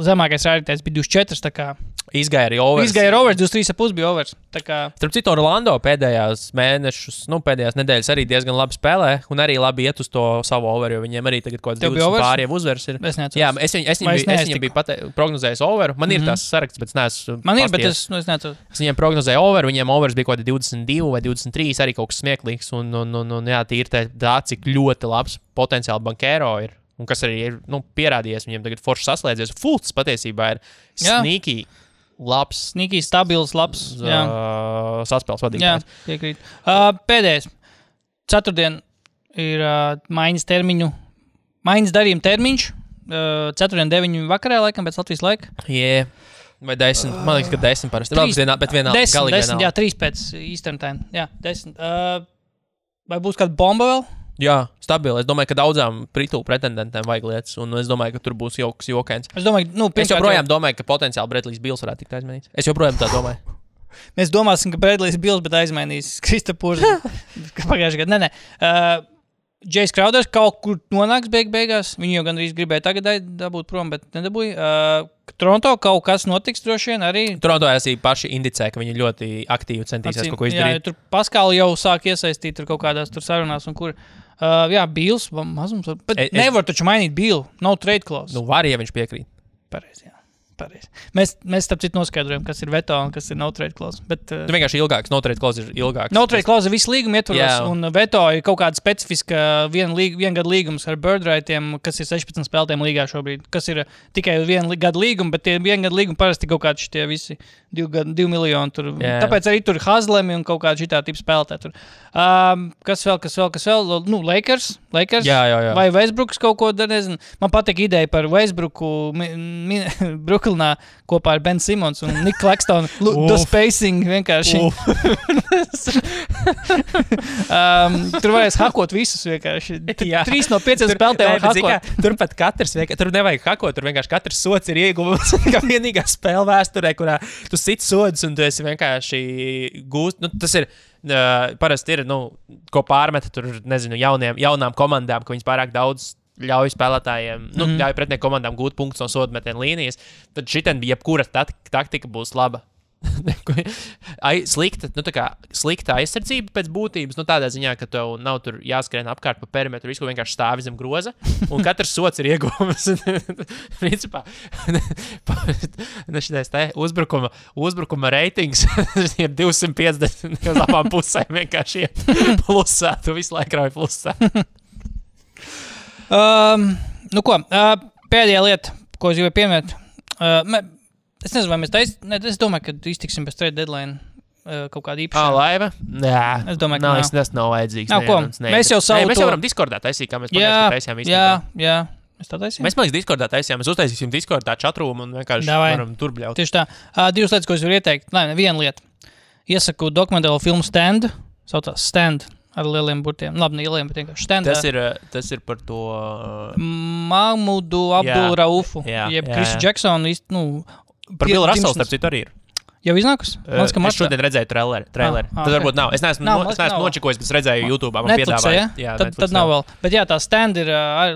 zemākais rādītājs bija 24, tā kā izgāja arī overs. 23,5 bija overs. Starp citu, Orlando pēdējās nedēļas arī diezgan labi spēlē un arī labi iet uz to savu over, jo viņiem arī tagad kaut kāds 20 pāri jau uzvers ir. Jā, es viņiem biju prognozējis over. Man ir tās saraksts, bet es neesmu Man ir, bet es neatceros. Es viņiem prognozēju over, viņiem overs bija kaut kādi 22 vai 23, arī kaut kas smieklīgs un jā, tīri tā, cik ļoti labs potenciāli bankēro ir. Un kas arī ir pierādījies, viņiem tagad forši saslēdzies. Fults patiesībā ir sneaky labs. Sneaky, stabils, labs. Saspēles vadītājs. Jā, piekrīt. Pēdējais. Ceturtdien ir maiņas darījuma termiņš. Ceturtdien 9 vakarā, laikam, pēc Latvijas laika. Jā. Vai 10? Man liekas, ka 10 parasti. 10, jā, 3 pēc Eastern time. Jā, 10. Vai būs kāda bomba vēl? Jā, stabili. Es domāju, ka daudzām pretendentiem vajag lietas, un es domāju, ka tur būs jokains. Es joprojām domāju, ka potenciāli Bredlijs Bills varētu tikt aizmainīts. Es joprojām tā domāju. Mēs domāsim, ka Bredlijs Bills, bet aizmainīs Kristapūrs. Pagājušajā gadā. Nē. Džejs Krauders kaut kur nonāks beigās. Viņu jau gandrīz gribēja tagad dabūt prom, bet nedabūja. Toronto kaut kas notiks droši vien arī. Toronto arī paši indicē, ka viņi ļoti aktīvi centīsies kaut ko izdarīt. Jā, tur Paskāli jau sāk iesaistīt tur kaut kādās tur sarunās un kur. Jā, Bills mazums. Bet nevar taču mainīt Billu. Nav trade clause. Nu, var, ja viņš piekrīt. Pareizi, jā. Pareizi. Mēs starp citu noskaidrojam, kas ir veto un kas ir no trade clause. Bet, tu vienkārši ilgāks, no trade clause ir ilgāks. No trade clause visu līgumu ietvaros, un veto ir kaut kāda specifiska viengada līgums ar birdrightiem, kas ir 16 spēlētiem līgā šobrīd, kas ir tikai vienu gadu līgumu, bet tie viengada līgumi parasti kaut kādi šitie visi 2 miljoni tur. Tāpēc arī tur Hazlemi un kaut kādi šitā tipa spēlētāji tur. Kas vēl? Nu, Lakers? Jā. Vai Westbrooks kaut ko, nezinu. Man patīk ideja par Westbrooku Brooklynā kopā ar Ben Simmons un Nick Claxton. The spacing vienkārši. Tur varēs hakot visus vienkārši. 3 no 5 spēlētājiem var hakot. Turpat katrs, tur nevajag hakot, tur vienkārši katrs sots ir ieguvums. Kā vienīgā spēle vēsturē, kurā tu sit sodus un tu esi vienkārši gūst. Nu, tas ir parasti ir, ko pārmeta tur, nezinu, jaunām komandām, ka viņas pārāk daudz ļauj spēlētājiem, ļauj pretinieku komandām gūt punktus no sodmetienu līnijas, tad šitien jebkura taktika būs laba. Slikta aizsardzība pēc būtības, tādā ziņā, ka tev nav tur jāskrien apkārt pa perimetru, visu vienkārši stāvi zem groza, un katrs sots ir ieguvums. Principā, šitais te uzbrukuma reitings ir 250 uz abām pusēm vienkārši iet plusā, tu visu laiku rauj plusā. Pēdējā lieta, ko es gribēju pieminēt, es nezinu, vai mēs es domāju, ka iztiksim bez trade deadline kaut kāda īpaša. Laiva? Jā. Es domāju, ka tas nav vajadzīgs. Mēs jau mēs jau varam Discordā taisīt, kā mēs taisījām īstenībā. Jā. Mēs tā taisījām? Mēs Discordā taisījām. Mēs uztaisīsim Discordā chatroomu un vienkārši varam tur bļaut. Tieši tā. 2 lietas, ko es varu ieteikt. Viena lieta. Iesaku dokumentālo filmu Stand. Saucās Stand. Ar lieliem burtiem. Labi, ne lieliem, bet vienkārši Stand. Tas ir par to... Mahmudu Abdul Raufu. Jeb Chrisu Jacksonu. Par Billu Russellu, starp citu, arī ir. Jau iznākus? Es šodien redzēju traileri. Tad varbūt nav. Es neesmu nočikojis, bet es redzēju YouTube. Netflixā, ja? Tad nav vēl. Bet jā, tā Stand ir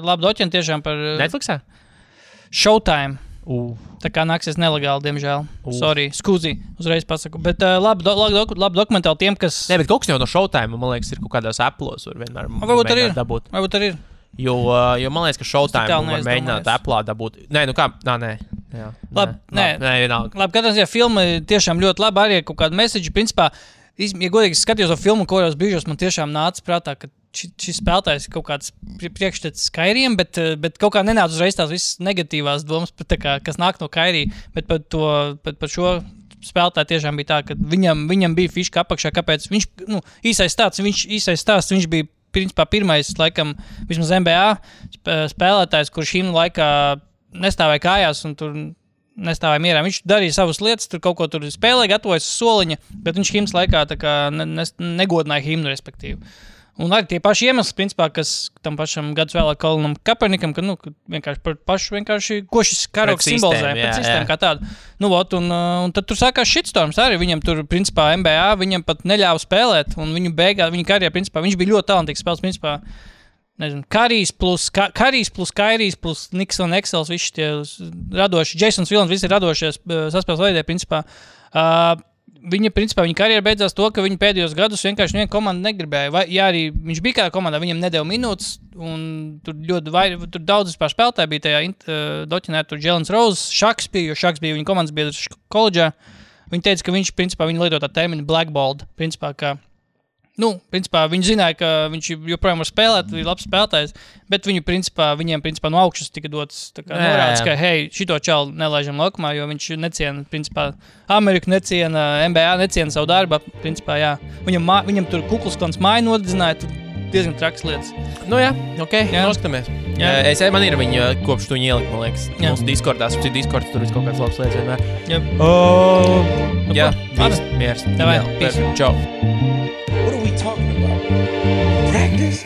labi doķeni tiešām par... Netflixā? Showtime. Tā kā nāksies nelegāli, diemžēl. Sorry, skūzi, uzreiz pasaku. Bet labi dokumentāli tiem, kas... Nē, bet kaut kas jau no Showtime, man liekas, ir kaut kādās Apple'os var vienmēr dabūt. Varbūt arī ir. Jo man liekas, ka Showtime var mēģināt Apple'ā dabūt. Nē, nē. Jā. Labi, katrā ziņā filma tiešām ļoti labi arī ir kaut kāda message. Principā, ja godīgi skatījos to filmu, kuros brīžos man tiešām nāca prātā, ka šis spēlētājs kaut kāds priekšstats Kairiem, bet kaut kā nenāca uzreiz tās visas negatīvās domas, kas nāk no Kairī, bet par šo spēlētāju tiešām bija tā, ka viņam bija fiška apakšā, kāpēc viņš, īsais stāsts, viņš bija principā pirmais, laikam, vismaz NBA spēlētājs, kurš himnu laikā nestāvēja kājās un tur nestāvēja mierā. Viņš darīja savas lietas, tur kaut ko tur spēlēja, gatavojas uz soliņa, bet viņš himnas laikā tā kā negodināja himnu, respektīvi. Un arī tie paši iemesli, principā, kas tam pašam gadus vēlāk Kolinam Kaepernickam, ka vienkārši par pašu, ko šis karoks simbolizē, pēc sistēmu kā tādu. Un tad tur sākās shitstorms arī, viņam tur, principā, NBA, viņam pat neļāva spēlēt, un viņa karjerā, principā, viņš bija ļoti talantīgs spēles, principā, nezinu, Karijs plus Kairijs plus Nixon Excels, visi tie radoši, Jasons Vilans, visi radošies saspēles veidē, principā, viņa karjera beidzās to, ka viņa pēdējos gadus vienkārši viena komanda negribēja. Ja arī viņš bija kādā komandā, viņam nedēļa minūtes, un tur tur daudz vispār spēlētāji bija tajā doķinē, tur Jalen Rose, Šaks bija, jo Šaks bija viņa komandas biedrs koledžā. Viņi teica, ka viņš, principā, viņa lieto tā terminu blackballed, principā, ka principā, viņi zināja, ka viņš joprojām var spēlēt, ir labs spēlētājs, bet viņiem, principā, no augšas tika dots norādes, ka, hei, šito čalu nelaižam laukumā, jo viņš neciena, principā, Ameriku neciena, NBA neciena savu darbu, principā, jā. Viņam tur Kuklsklans māju nodedzināja, tur diezgan traks lietas. Noskatāmies. Man ir viņa kopš tu ielikt, man liekas, mūsu Discordās, Discords, tur ir kaut kāds labs lietas vienmēr. Jā, miers. Peace. Čau. What are we talking about? Practice?